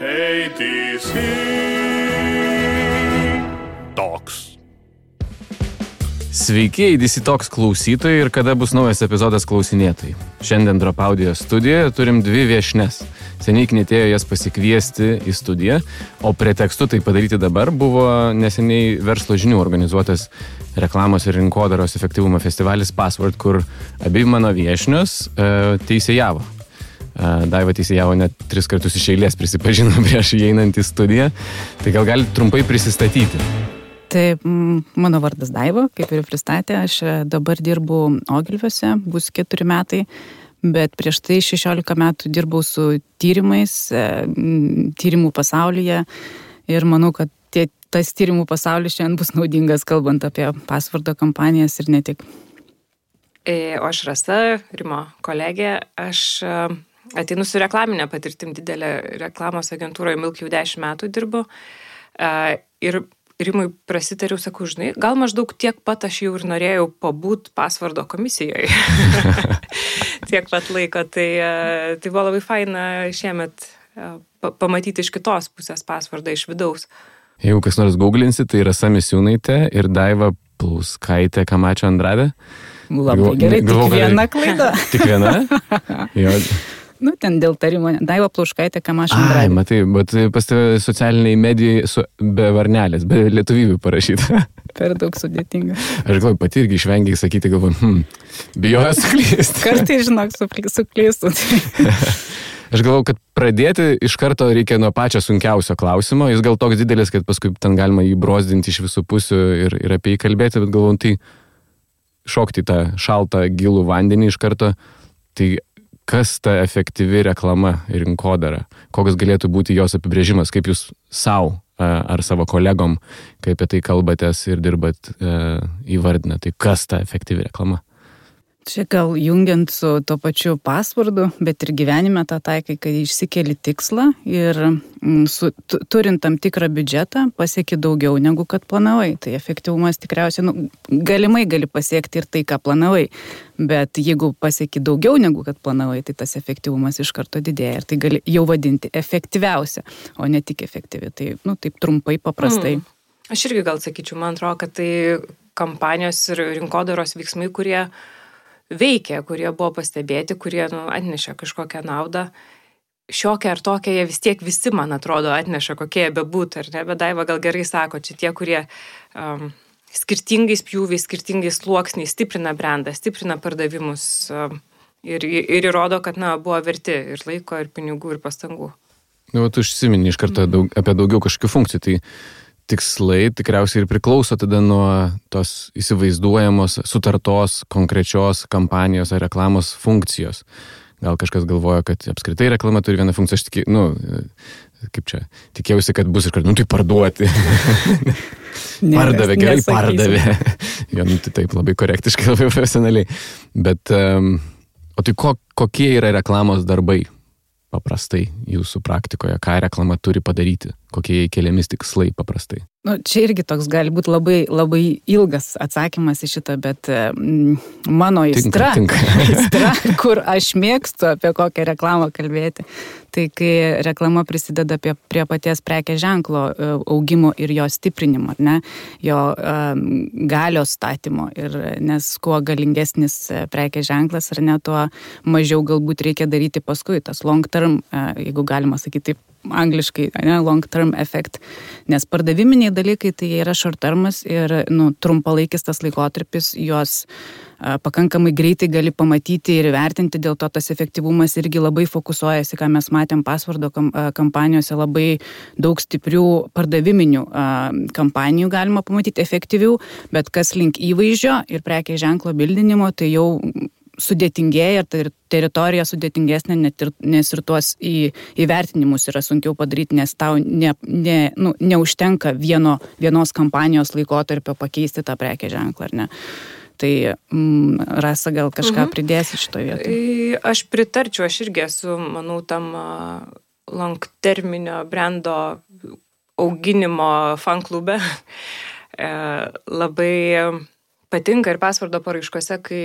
ATC Talks. Sveiki, ATC Talks klausytojai ir kada bus naujas epizodas klausinėtojai. Šiandien Drop Audio studijoje turim dvi viešnes. Seniai knietėjo jas pasikviesti į studiją, o pretekstu tai padaryti dabar buvo neseniai Verslo žinių organizuotas reklamos ir rinkodaros efektyvumo festivalis Password, kur abi mano viešnios teisėjavo. Daiva teisėjavo net 3 kartus iš eilės, prisipažino prieš įeinant į studiją. Tai gal galite trumpai prisistatyti? Tai mano vardas Daiva, kaip ir pristatė, aš dabar dirbu Ogilviuose, bus 4 metai, bet prieš tai 16 metų dirbau su tyrimais, tyrimų pasaulyje ir manau, kad tas tyrimų pasaulis šiandien bus naudingas, kalbant apie Passwordo kampanijas ir ne tik. O aš Rasa, Rimo kolegė, aš ateinu su reklaminė patirtim, didelė reklamos agentūroje Milk jau 10 metų dirbu ir Rimui prasitariau, sakau, žinai, gal maždaug tiek pat aš jau ir norėjau pabūt Passwordo komisijoje. Tiek pat laiko, tai buvo labai faina šiemet pamatyti iš kitos pusės Passwordą iš vidaus. Jeigu kas nors googlinsi, tai Rasa Misiūnaitė ir Daiva Plauskaitė Kamačio Andrade. Labai gerai, tik viena klaida. Tik viena? Jo. Nu, ten dėl tarimo, Daiva Plauskaitė Kamačio Andrade. Ai, matai, bet pas tave socialiniai medijai be varnelės, be lietuvybių parašyta. Per daug sudėtinga. Aš galvoju, pati irgi išvengiai sakyti, galvoju, bijoju suklysti. Kartais, žinok, suklystų. Aš galvoju, kad pradėti iš karto reikia nuo pačio sunkiausio klausimo. Jis gal toks didelis, kad paskui ten galima jį brozdinti iš visų pusių ir apie jį kalbėti, bet galvoju, tai šokti tą šaltą gilų vandenį iš karto. Tai kas ta efektyvi reklama ir rinkodara? Koks galėtų būti jos apibrėžimas? Kaip jūs savo ar savo kolegom, kai apie tai kalbatės ir dirbat, įvardina? Tai kas ta efektyvi reklama? Čia gal jungiant su to pačiu Passwordu, bet ir gyvenime tą taikai, kai išsikeli tikslą ir turint tam tikrą biudžetą pasieki daugiau negu kad planavai. Tai efektyvumas tikriausiai, galimai gali pasiekti ir tai, ką planavai, bet jeigu pasieki daugiau negu kad planavai, tai tas efektyvumas iš karto didėja ir tai gali jau vadinti efektyviausia, o ne tik efektyvi. Tai, taip trumpai, paprastai. Aš irgi gal sakyčiau, man atrodo, kad tai kampanijos ir rinkodaros veiksmai, kurie veikia, kurie buvo pastebėti, kurie atnešė kažkokią naudą. Šiokia ar tokia, jie vis tiek visi, man atrodo, atneša, kokie jie bebūtų, ar ne? Bet Daiva gal gerai sako, čia tie, kurie skirtingais pjūviais, skirtingais sluoksniais stiprina brandą, stiprina pardavimus ir įrodo, kad buvo verti ir laiko, ir pinigų, ir pastangų. Tu užsimeni iš karto apie daugiau kažkokių funkcijų, tai tikslai tikriausiai ir priklauso tada nuo tos įsivaizduojamos, sutartos, konkrečios kampanijos ar reklamos funkcijos. Gal kažkas galvoja, kad apskritai reklama turi vieną funkciją, aš tikėjausi, kad bus ir kad, tai parduoti. Pardavė, gerai pardavė. Jo, tai taip, labai korektiškai, labai profesionaliai. Bet, o tai kokie yra reklamos darbai paprastai jūsų praktikoje? Ką reklama turi padaryti? Kokie keliamis tikslai paprastai? Čia irgi toks gali būti labai, labai ilgas atsakymas į šitą, bet mano aistra, kur aš mėgstu apie kokią reklamą kalbėti, tai kai reklama prisideda prie paties prekės ženklo augimo ir jo stiprinimo, ne? Jo galios statymo. Nes kuo galingesnis prekės ženklas, ar ne, tuo mažiau galbūt reikia daryti paskui. Tas long term, jeigu galima sakyti taip, angliškai, long term effect, nes pardaviminiai dalykai tai yra short termas ir trumpalaikis tas laikotarpis, juos pakankamai greitai gali pamatyti ir vertinti, dėl to tas efektyvumas irgi labai fokusuojasi, ką mes matėm Passwordo kampanijose, labai daug stiprių pardaviminių kampanijų galima pamatyti efektyvių, bet kas link įvaizdžio ir prekės ženklo bildinimo, tai jau sudėtingėja ir teritorija sudėtingesnė, nes ir tuos įvertinimus yra sunkiau padaryti, nes tau neužtenka vienos kampanijos laikotarpio pakeisti tą prekės ženklą, ar ne? Tai Rasa gal kažką pridėsi šitoje vietoje? Aš pritarčiau, aš irgi esu, manau, tam long terminio brando auginimo fan klube. Labai patinka ir Passwordo paraiškose, kai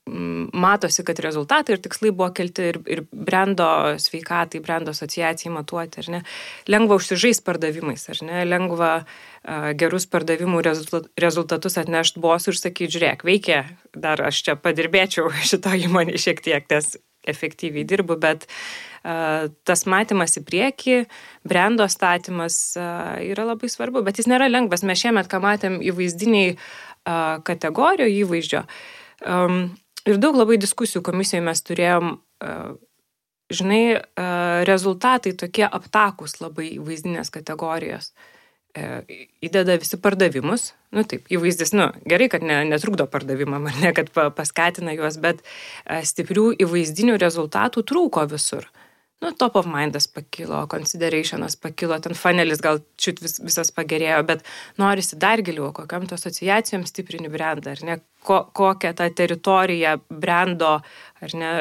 matosi, kad rezultatai ir tikslai buvo kelti ir brendo sveikatai, brendo asociacijai matuoti, ar ne? Lengva užsižaisti pardavimais, ar ne? Lengva gerus pardavimų rezultatus atnešti bosų ir sakyti, žiūrėk, veikia, dar aš čia padirbėčiau šito įmonį šiek tiek, nes efektyviai dirbu, bet tas matymas į priekį, brendo statymas yra labai svarbu, bet jis nėra lengvas. Mes šiemet, ką matėm įvaizdiniai kategorijų įvaizdžio, ir daug labai diskusijų komisijoje mes turėjom, žinai, rezultatai tokie aptakus labai įvaizdinės kategorijos. Įdeda visi pardavimus, taip, įvaizdis, gerai, kad netrukdo pardavimam, ar ne, kad paskatina juos, bet stiprių įvaizdinių rezultatų trūko visur. Top of mindas pakilo, considerationas pakilo, ten funelis gal čiut visas pagerėjo, bet norisi dar giliau, kokiam to asociacijom stiprini brandą, ar ne, kokią tą teritoriją brando, ar ne,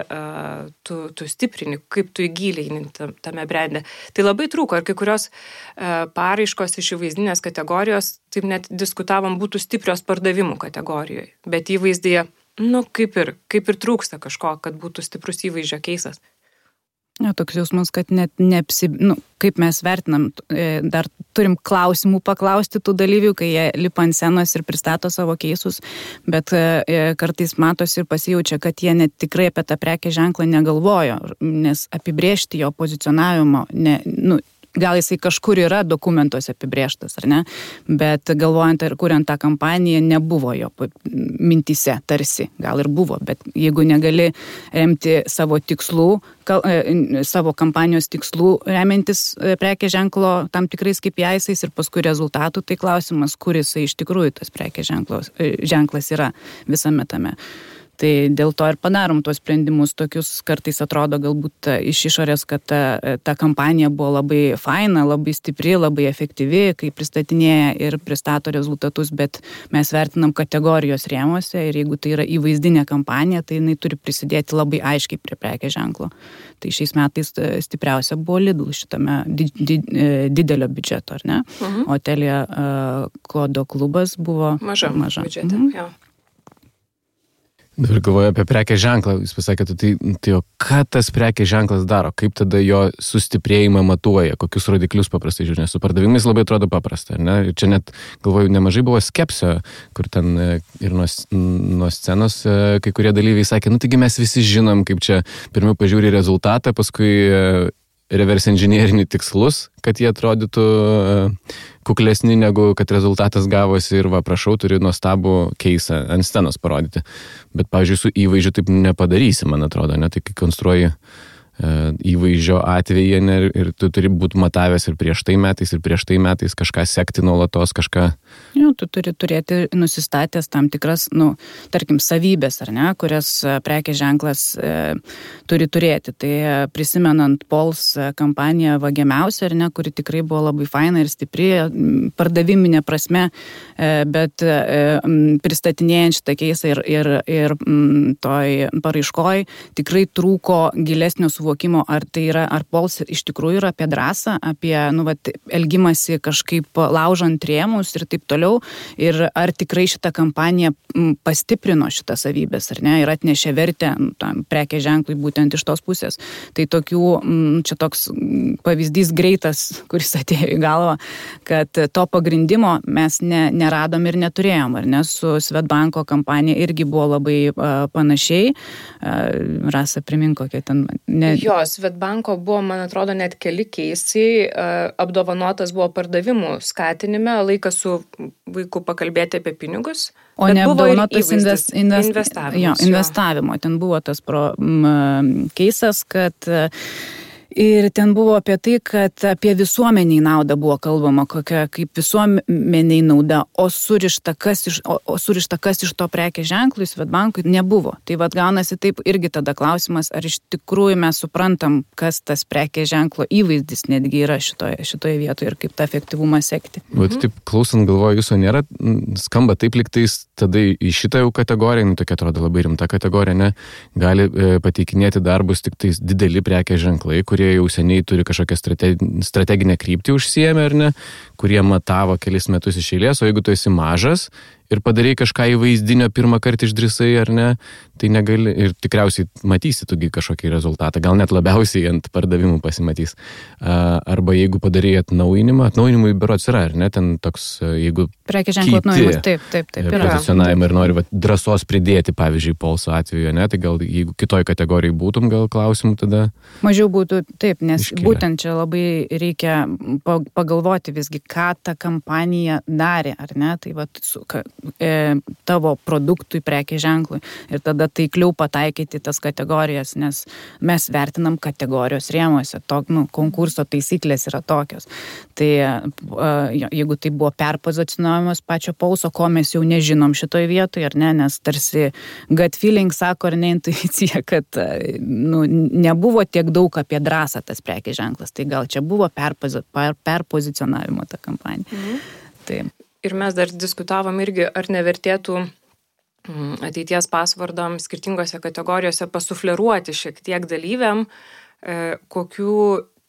tu stiprini, kaip tu įgilini tame brande. Tai labai trūko, ir kai kurios paraiškos iš įvaizdinės kategorijos, taip net diskutavom, būtų stiprios pardavimų kategorijoje, bet įvaizdyje, kaip ir trūksta kažko, kad būtų stiprus įvaizdžio keisas. Toks jausmas, kad net kaip mes vertinam, dar turim klausimų paklausti tų dalyvių, kai jie lipa ant scenos ir pristato savo keisus, bet kartais matosi ir pasijaučia, kad jie net tikrai apie tą prekės ženklą negalvojo, nes apibrėžti jo pozicionavimo, gal jisai kažkur yra dokumentuose apibrėžtas, ar ne, bet galvojant ir kuriant tą kampaniją, nebuvo jo mintise, tarsi, gal ir buvo, bet jeigu negali remti savo tikslų, savo kampanijos tikslų remiantis prekės ženklo tam tikrais KPIs ir paskui rezultatų, tai klausimas, kuris iš tikrųjų tas prekės ženklas yra visame tame. Tai dėl to ir padarom tuos sprendimus tokius, kartais atrodo galbūt iš išorės, kad ta kampanija buvo labai faina, labai stipri, labai efektyvi, kai pristatinėja ir pristato rezultatus, bet mes vertinam kategorijos rėmuose ir jeigu tai yra įvaizdinė kampanija, tai jinai turi prisidėti labai aiškiai prie prekės ženklo. Tai šiais metais stipriausia buvo Lidl šitame didelio biudžeto, ar ne? O Telia Kodo klubas buvo maža. Biudžete, jo. Dabar galvoju apie prekės ženklą, jūs pasakėte, tai ką tas prekės ženklas daro, kaip tada jo sustiprėjimą matuoja, kokius rodiklius paprastai žiūrė, su pardavimais labai atrodo paprasta, ar ne? Ir čia net, galvoju, nemažai buvo skepsio, kur ten ir nuo scenos kai kurie dalyviai sakė, taigi mes visi žinom, kaip čia pirmiau pažiūri rezultatą, paskui reverse engineerinį tikslus, kad jie atrodytų kuklesni negu kad rezultatas gavosi ir prašau, turi nuostabų keisą ant scenos parodyti. Bet, pavyzdžiui, su įvaizdžiu taip nepadarysi, man atrodo, ne? Tai kai konstruoji įvaizdžio atveju ir tu turi būti matavęs ir prieš tai metais kažką sekti nuolatos, kažką. Tu turi turėti nusistatęs tam tikras, tarkim, savybės, ar ne, kurias prekės ženklas turi turėti. Tai prisimenant Pols kampaniją Vagiamiausia, ar ne, kuri tikrai buvo labai faina ir stipri, pardaviminė prasme, bet pristatinėjant šitą keisą ir toj paraiškoj tikrai trūko gilesnio suvokimo, ar tai yra, ar Pols iš tikrųjų yra apie drąsą, apie, elgimasi kažkaip laužant rėmus ir taip toliau, ir ar tikrai šitą kampaniją pastiprino šitą savybės, ar ne, ir atnešė vertę tam prekės ženklui būtent iš tos pusės. Tai tokių, čia toks pavyzdys greitas, kuris atėjo į galvą, kad to pagrindimo mes neradom ir neturėjom, ar ne, su Swedbanko kampanija irgi buvo labai panašiai. Rasa, primink, kokia ten... Jo, Swedbanko buvo, man atrodo, net keli keisai, apdovanotas buvo pardavimų skatinime, laikas su vaiku pakalbėti apie pinigus. O ne apdovanotas investavimo. Ten buvo tas keisas, kad... Ir ten buvo apie tai, kad apie visuomeniai naudą buvo kalbama, kokia kaip visuomeniai nauda, o surišta kas iš to prekės ženklų Swedbankui nebuvo. Tai gaunasi taip irgi tada klausimas, ar iš tikrųjų mes suprantam, kas tas prekės ženklo įvaizdis netgi yra šitoje vietoje ir kaip tą efektyvumą sekti. Taip, klausant, galvoju, jūsų nėra, skamba taip liktais tada į šitą jau kategoriją, tokia atrodo labai rimta kategorija, ne, gali pateikinėti darbus tik tais dideli prekės ženklai, kurie jau seniai turi kažkokią strateginę kryptį užsiėmę, ar ne, kurie matavo kelis metus iš eilės, o jeigu tu esi mažas ir padarai kažką įvaizdinio pirmą kartą išdrįsai, ar ne, tai negali ir tikriausiai matysi tugi kažkokį rezultatą, gal net labiausiai ant pardavimų pasimatys. Arba jeigu padarai atnaujinimui berods yra, ar ne, ten toks, jeigu prekės ženklo atnaujinimas, taip, pozicionavimą ir nori drąsos pridėti, pavyzdžiui, Polso atveju, ne, tai gal jeigu kitoj kategorijai būtum, gal klausimų tada mažiau būtų, taip, nes būtent čia labai reikia pagalvoti visgi, ką ta kampanija darė, ar ne, tai tavo produktui, prekės ženklui ir tada taikliau pataikyti tas kategorijas, nes mes vertinam kategorijos rėmuose, konkurso taisyklės yra tokios. Tai jeigu tai buvo perpozicionavimas pačio Polso, ko mes jau nežinom šitoj vietoje, ar ne, nes tarsi gut feeling sako, ar ne, intuicija, kad nebuvo tiek daug apie drąsą tas prekės ženklas, tai gal čia buvo perpozicionavimo ta kampanija. Taip. Ir mes dar diskutavom irgi, ar nevertėtų ateities pasvardams skirtingose kategorijose pasufleruoti šiek tiek dalyviam, kokių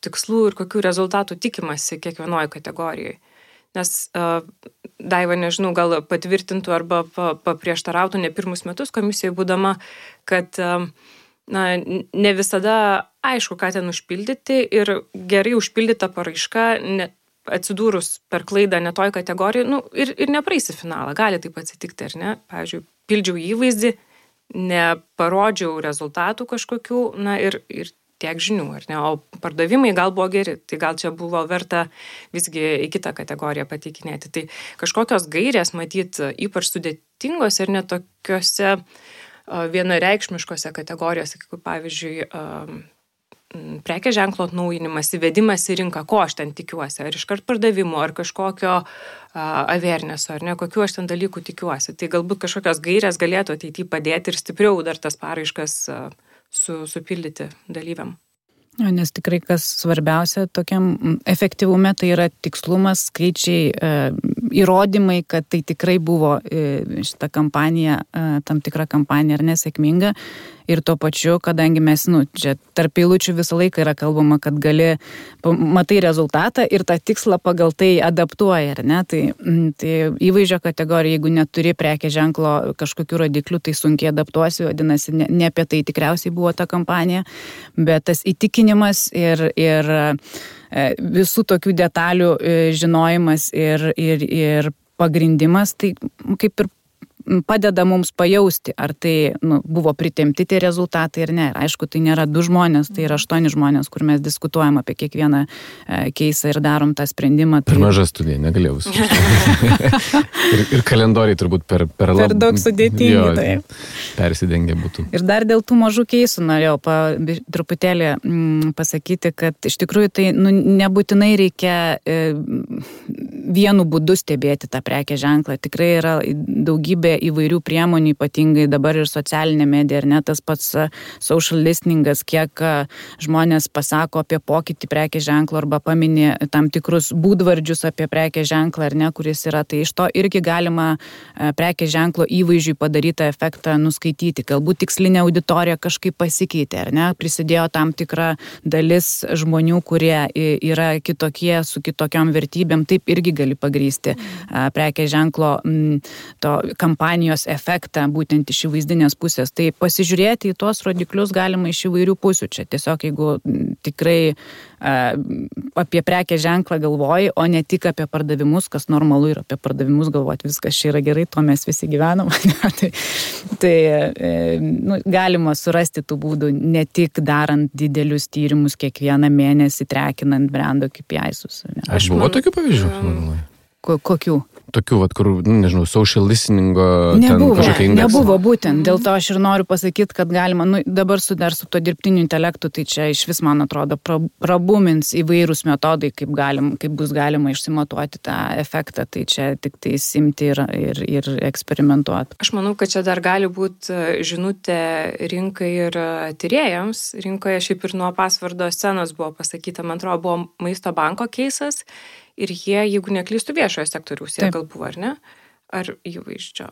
tikslų ir kokių rezultatų tikimasi kiekvienoje kategorijoje. Nes Daiva, nežinau, gal patvirtintų arba paprieštarautų ne pirmus metus komisijoje būdama, kad ne visada aišku, ką ten užpildyti ir gerai užpildyta paraiška atsidūrus per klaidą netoj kategorijoje, ir nepraeisi finalą, gali taip atsitikti, ar ne? Pavyzdžiui, pildžiau įvaizdį, neparodžiau rezultatų kažkokių, ir tiek žinių, ar ne? O pardavimai gal buvo geri, tai gal čia buvo verta visgi į kitą kategoriją pateikinėti. Tai kažkokios gairės, matyt, ypač sudėtingos ir netokiose vienareikšmiškose kategorijose, kaip pavyzdžiui, prekės ženklo atnaujinimas, įvedimas į rinką, ko aš ten tikiuosi, ar iškart pardavimo, ar kažkokio awarenesso, ar ne, kokiu aš ten dalykų tikiuosi. Tai galbūt kažkokios gairės galėtų ateityje padėti ir stipriau dar tas paraiškas supildyti dalyviam. Nes tikrai kas svarbiausia tokiam efektyvume, tai yra tikslumas, skaičiai, įrodymai, kad tai tikrai buvo šita kampanija, tam tikra kampanija ar nesėkminga. Ir tuo pačiu, kadangi mes, čia tarp eilučių visą laiką yra kalbama, kad matai rezultatą ir tą tikslą pagal tai adaptuoja, ar ne? Tai įvaizdžio kategorija, jeigu neturi prekės ženklo kažkokių rodiklių, tai sunkiai adaptuosi, vadinasi, ne apie tai tikriausiai buvo ta kampanija, bet tas įtikinimas ir visų tokių detalių žinojimas ir pagrindimas, tai kaip ir padeda mums pajausti, ar tai buvo pritemti tie rezultatai ar ne. Ir aišku, tai nėra 2 žmonės, tai yra 8 žmonės, kur mes diskutuojam apie kiekvieną keisą ir darom tą sprendimą. Per maža studija, negalėjau visų. ir kalendoriai turbūt per daug sudėtingi. Taip. Persidengia būtų. Ir dar dėl tų mažų keisų norėjau truputėlį pasakyti, kad iš tikrųjų tai nebūtinai reikia vienu būdu stebėti tą prekės ženklą. Tikrai yra daugybė įvairių priemonių, ypatingai dabar ir socialinė medija, ar ne, tas pats social listeningas, kiek žmonės pasako apie pokytį prekės ženklo arba paminė tam tikrus būdvardžius apie prekės ženklą, ar ne, kuris yra. Tai iš to irgi galima prekės ženklo įvaizdžiui padarytą efektą nuskaityti. Galbūt tikslinė auditorija kažkaip pasikeitė, ar ne, prisidėjo tam tikra dalis žmonių, kurie yra kitokie, su kitokiom vertybėm, taip irgi gali pagrįsti prekės ženklo to kampanijos efektą būtent iš įvaizdinės pusės. Tai pasižiūrėti į tuos rodiklius galima iš įvairių pusių. Čia tiesiog, jeigu tikrai apie prekės ženklą galvoji, o ne tik apie pardavimus, kas normalu ir apie pardavimus galvoti, viskas čia yra gerai, to mes visi gyvenam. tai galima surasti tų būdų, ne tik darant didelius tyrimus kiekvieną mėnesį, trekinant brando KPI-sus. Aš buvo tokių pavyzdžių? Kokių? Tokių, kur, nežinau, social listeningo kažkokia indeksą. Nebuvo būtent. Dėl to aš ir noriu pasakyti, kad galima, dabar su to dirbtiniu intelektu, tai čia iš vis, man atrodo, prabumins įvairūs metodai, kaip bus galima išsimatuoti tą efektą. Tai čia tik tai simti ir eksperimentuoti. Aš manau, kad čia dar gali būti žinutė rinkai ir tyrėjams. Rinkoje šiaip ir nuo pasvardo scenos buvo pasakyta, man atrodo, buvo Maisto banko keisas. Ir jie, jeigu neklystų viešojo sektoriaus, jie gal buvo, ar ne? Ar įvaizdžio?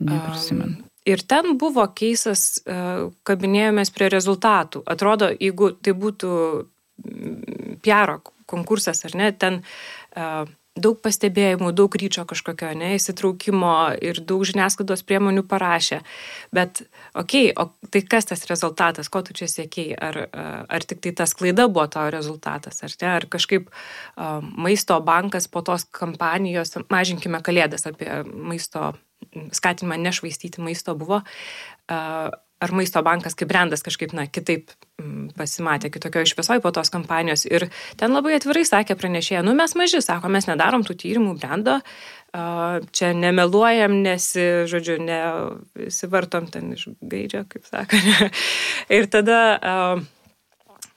Neprisimenu. Ir ten buvo keisas, kabinėjomės prie rezultatų. Atrodo, jeigu tai būtų PR konkursas, ar ne, ten daug pastebėjimų, daug ryčio kažkokio, įsitraukimo ir daug žiniasklaidos priemonių parašė. Bet, o tai kas tas rezultatas, ko tu čia siekėjai? Ar tik tai tas klaida buvo tavo rezultatas, ar ne? Ar kažkaip maisto bankas po tos kampanijos, mažinkime kalėdas apie maisto skatinimą nešvaistyti maisto buvo, ar maisto bankas kaip brandas kažkaip, kitaip pasimatė kitokio šviesoj po tos kampanijos. Ir ten labai atvirai sakė pranešėja, mes maži, sako, mes nedarom tų tyrimų brando, čia nemeluojam, nesivartom ten iš gaidžio, kaip sako. Ir tada,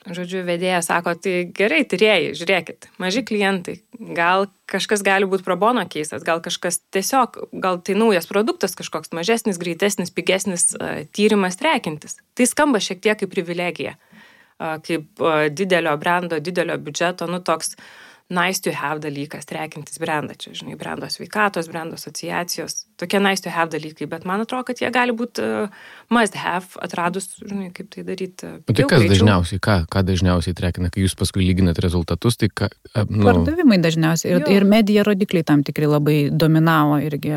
vedėja sako, tai gerai, tyrėjai, žiūrėkit, maži klientai, gal kažkas gali būti pro bono keisas, gal kažkas tiesiog, gal tai naujas produktas kažkoks mažesnis, greitesnis, pigesnis tyrimas trekintis. Tai skamba šiek tiek kaip privilegija, kaip didelio brando, didelio biudžeto, toks nice to have dalykas, trekintis brandą, čia, brando sveikatos, brando asociacijos, tokie nice to have dalykai, bet man atrodo, kad jie gali būti must have, atradus, kaip tai daryti. Tai kas dažniausiai, ką dažniausiai trekina, kai jūs paskui lyginat rezultatus, tai ką... Pardavimai dažniausiai ir medija rodikliai tam tikrai labai dominavo irgi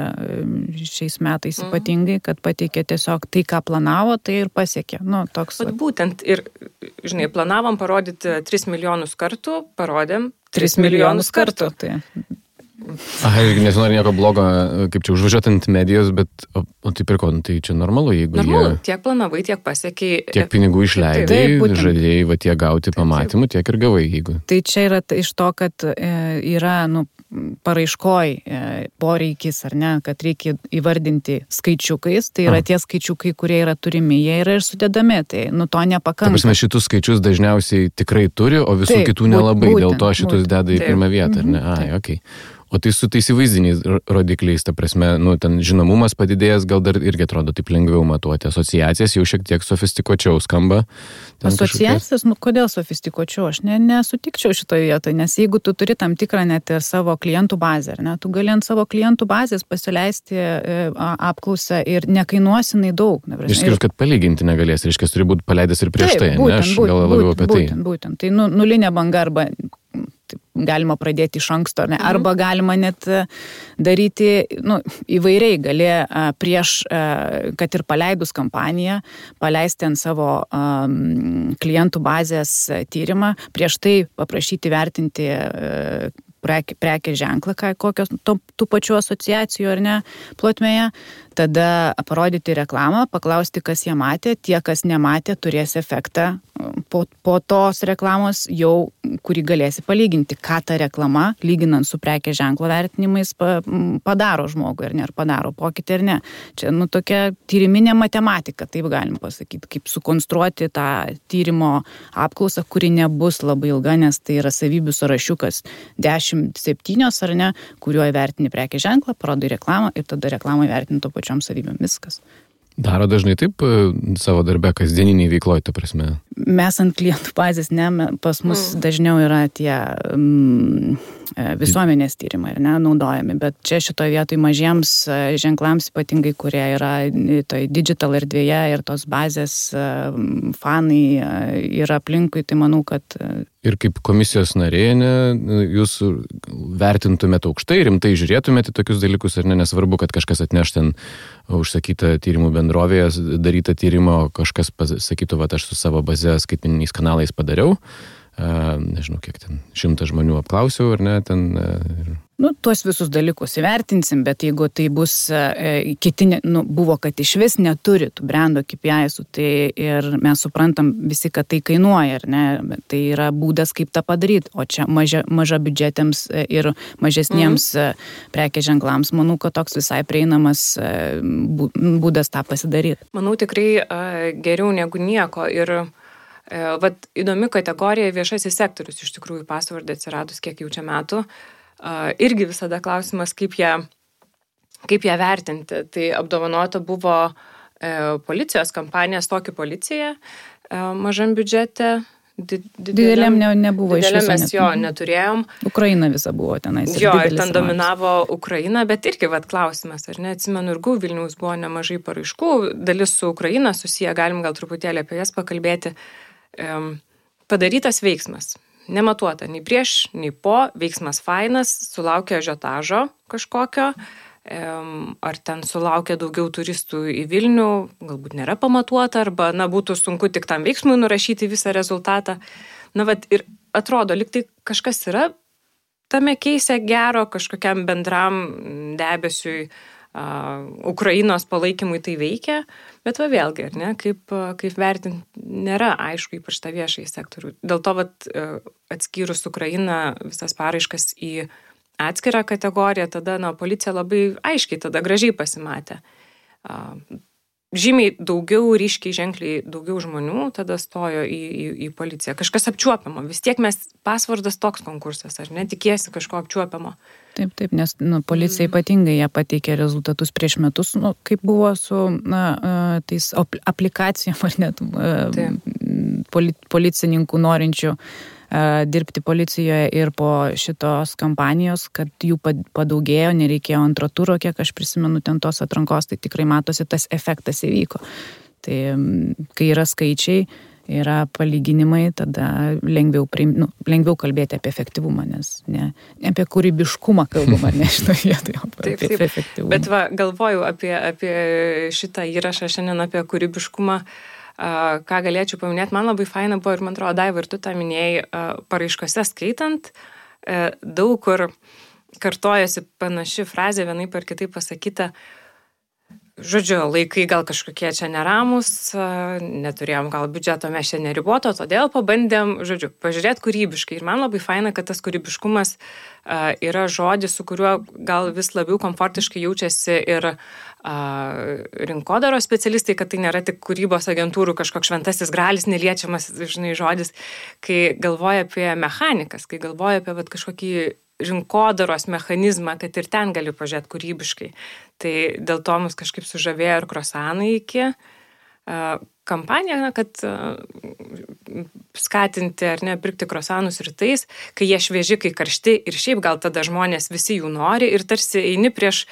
šiais metais ypatingai, kad pateikė tiesiog tai, ką planavo, tai ir pasiekė. Toks... Būtent ir, planavom parodyti 3 milijonus kartų, parodėm 3 milijonus kartų. Tai. Nesinori nieko blogo, kaip čia užvažiuoti ant medijos, bet o tai pirko, tai čia normalu, jeigu tiek planavai, tiek pasiekiai. Tiek pinigų išleidai, žadėjai tiek gauti pamatymų, tiek ir gavai, jeigu. Tai čia yra iš to, kad yra, paraiškoj poreikis, ar ne, kad reikia įvardinti skaičiukais, tai yra tie skaičiukai, kurie yra turimi, jie yra ir sudedami, tai to nepakanka. Ta prasme, šitus skaičius dažniausiai tikrai turi, o visų kitų nelabai, dėl to šitus deda į pirmą vietą, ar ne? Okay. O tai su tais įvaizdiniais rodikliais, ta prasme, ten žinomumas padidėjęs, gal dar irgi atrodo taip lengviau matuoti. Asociacijas jau šiek tiek sofistikuočiau skamba. Asociacijas, kodėl sofistikuočiau? Aš nesutikčiau šitoje vietoje, nes jeigu tu turi tam tikrą net ir savo klientų bazę, tu gali ant savo klientų bazės pasileisti apklausą ir nekainuosinai daug. Išskyrus, kad palyginti negalės, reiškia, turi būti paleidęs ir prieš tai, ne? Aš gal labiau apie tai. Būtent. Tai nulinė banga arba galima pradėti iš anksto, ne? Arba galima net daryti, įvairiai gali prieš, kad ir paleidus kampaniją, paleisti ant savo klientų bazės tyrimą, prieš tai paprašyti vertinti prekės ženklą, kokios tų pačių asociacijų ar ne plotmėje, tada parodyti reklamą, paklausti, kas ją matė, tie, kas nematė, turės efektą po tos reklamos jau, kurį galėsi palyginti, ką ta reklama, lyginant su prekės ženklo vertinimais, padaro žmogui, ar ne, ar padaro pokytį, ar ne. Čia, tokia tyriminė matematika, taip galim pasakyti, kaip sukonstruoti tą tyrimo apklausą, kuri nebus labai ilga, nes tai yra savybių sąrašiukas 10-7, ar ne, kuriuo įvertini prekės ženklą, parodai reklamą ir tada reklamą įvertini to pačiom savybėm, viskas. Daro dažnai taip savo darbe, kasdieniniai veikloj, ta prasme? Mes ant klientų bazės, pas mus dažniau yra tie visuomenės tyrimai, naudojami, bet čia šitoje vietoje mažiems ženklams, ypatingai, kurie yra toj digital erdvėje ir tos bazės fanai yra aplinkui, tai manau, kad... Ir kaip komisijos narė, jūs vertintumėte aukštai, rimtai žiūrėtumėte tokius dalykus, ar ne, nesvarbu, kad kažkas atneš ten užsakytą tyrimų bendrovėje, darytą tyrimą, kažkas sakytų, aš su savo baze skaitmeniniais kanalais padariau, nežinau, kiek ten 100 žmonių apklausiau, ar ne, ten... Tuos visus dalykus įvertinsim, bet jeigu tai bus kiti, buvo, kad iš vis neturi tų brando KPI-sų, tai ir mes suprantam visi, kad tai kainuoja, ar ne, tai yra būdas, kaip tą padaryti, o čia maža biudžetėms ir mažesniems prekės ženklams, manau, kad toks visai prieinamas būdas tą pasidaryti. Manau, tikrai geriau negu nieko ir įdomi kategorija viešasis sektorius, iš tikrųjų pasvardė atsiradus kiek jau čia metų. Irgi visada klausimas, kaip ją vertinti. Tai apdovanota buvo policijos kampanija Stokį policija mažam biudžete. Dideliam nebuvo iš viso. Dideliam mes jo neturėjom. Ukraina visa buvo tenais. Jo, ir ten dominavo Ukraina, bet irgi klausimas, ar ne, atsimenu, ir Vilniaus buvo nemažai paraiškų, dalis su Ukraina susiję, galim gal truputėlį apie jas pakalbėti. Padarytas veiksmas. nematuota nei prieš, nei po, veiksmas fainas, sulaukia ažiotažo kažkokio, ar ten sulaukia daugiau turistų į Vilnių, galbūt nėra pamatuota, arba, būtų sunku tik tam veiksmui nurašyti visą rezultatą. Ir atrodo, lyg tai kažkas yra tame keise gero, kažkokiam bendram debesiui, Ukrainos palaikymui tai veikia, bet vėlgi, kaip vertinti, nėra aišku, ypač tą viešąjį sektorių. Dėl to atskyrus Ukrainą visas paraiškas į atskirą kategoriją, tada policija labai aiškiai, tada gražiai pasimatė. Žymiai daugiau, ryškiai, ženkliai daugiau žmonių tada stojo į policiją. Kažkas apčiuopiamo. Vis tiek pasvardas toks konkursas, ar ne? Tikėsi kažko apčiuopiamo. Taip, nes policija ypatingai jie pateikė rezultatus prieš metus, kaip buvo su tais aplikacijom, ar net policininkų norinčių dirbti policijoje ir po šitos kampanijos, kad jų padaugėjo, nereikėjo antro turo, kiek aš prisimenu ten tos atrankos, tai tikrai matosi, tas efektas įvyko. Tai kai yra skaičiai, yra palyginimai, tada lengviau kalbėti apie efektyvumą, nes ne apie kūrybiškumą kalbama, ne šitoje vietoje, apie efektyvumą. Bet galvoju apie šitą įrašą šiandien apie kūrybiškumą. Ką galėčiau paminėti, man labai faina buvo ir man atrodo, Daiva, ir tu tą minėjai, paraiškose skaitant, daug kur kartojasi panaši frazė, vienaip ar kitaip pasakyta, žodžiu, laikai gal kažkokie čia neramus, neturėjom gal biudžeto, mes čia neriboto, todėl pabandėm, pažiūrėti kūrybiškai. Ir man labai faina, kad tas kūrybiškumas yra žodis, su kuriuo gal vis labiau komfortiškai jaučiasi ir rinkodaros specialistai, kad tai nėra tik kūrybos agentūrų kažkoks šventasis gralis, neliečiamas, žodis, kai galvoja apie mechanikas, kai galvoja apie kažkokį rinkodaros mechanizmą, kad ir ten gali pažiūrėti kūrybiškai. Tai dėl to mus kažkaip sužavėjo ir krosanai iki kampaniją, kad skatinti ar ne pirkti krosanus rytais, kai jie švieži, kai karšti ir šiaip gal tada žmonės visi jų nori ir tarsi eini prieš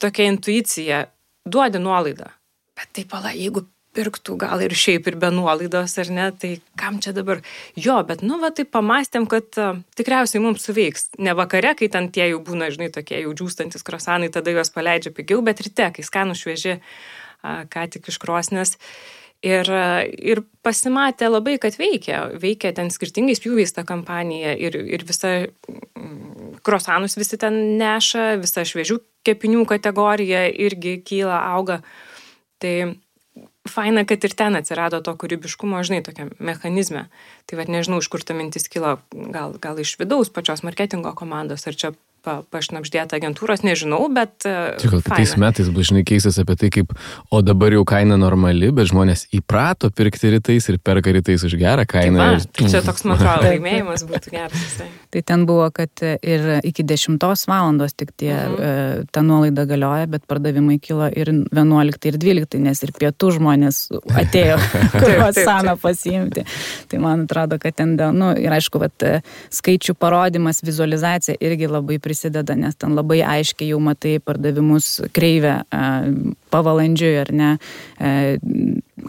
tokia intuicija, duodi nuolaidą. Bet taip, jeigu pirktų gal ir šiaip ir be nuolaidos, ar ne, tai kam čia dabar? Jo, bet taip pamastėm, kad tikriausiai mums suveiks. Ne vakare, kai ten tie jau būna, tokie jau džiūstantis krosanai, tada juos paleidžia pigiau, bet ryte, kai skanų švieži, ką tik iš krosnės. Ir pasimatė labai, kad veikia ten skirtingais pjūviais ta kampanija ir visa krosanus visi ten neša, visa šviežių kepinių kategorija irgi kyla, auga. Tai faina, kad ir ten atsirado to kūrybiškumo, tokiam mechanizme. Tai nežinau, iš kur ta mintis kilo, gal iš vidaus pačios marketingo komandos, ar čia pašnapždėta agentūros, nežinau, bet gal kitais metais bus keistas apie tai, kaip, o dabar jau kaina normali, bet žmonės įprato pirkti rytais ir perka rytais už gerą kainą. Tai čia toks, man atrodo, laimėjimas būtų geras. Tai ten buvo, kad ir iki 10 valandos tik ta nuolaida galioja, bet pardavimai kilo ir 11 ir 12, nes ir pietų žmonės atėjo kruasaną pasiimti. Tai man atrodo, kad ten, ir aišku, skaičių parodimas, vizualizacija irgi labai prisideda, nes ten labai aiškiai jau matai pardavimus kreivę pavalandžiui, ar ne,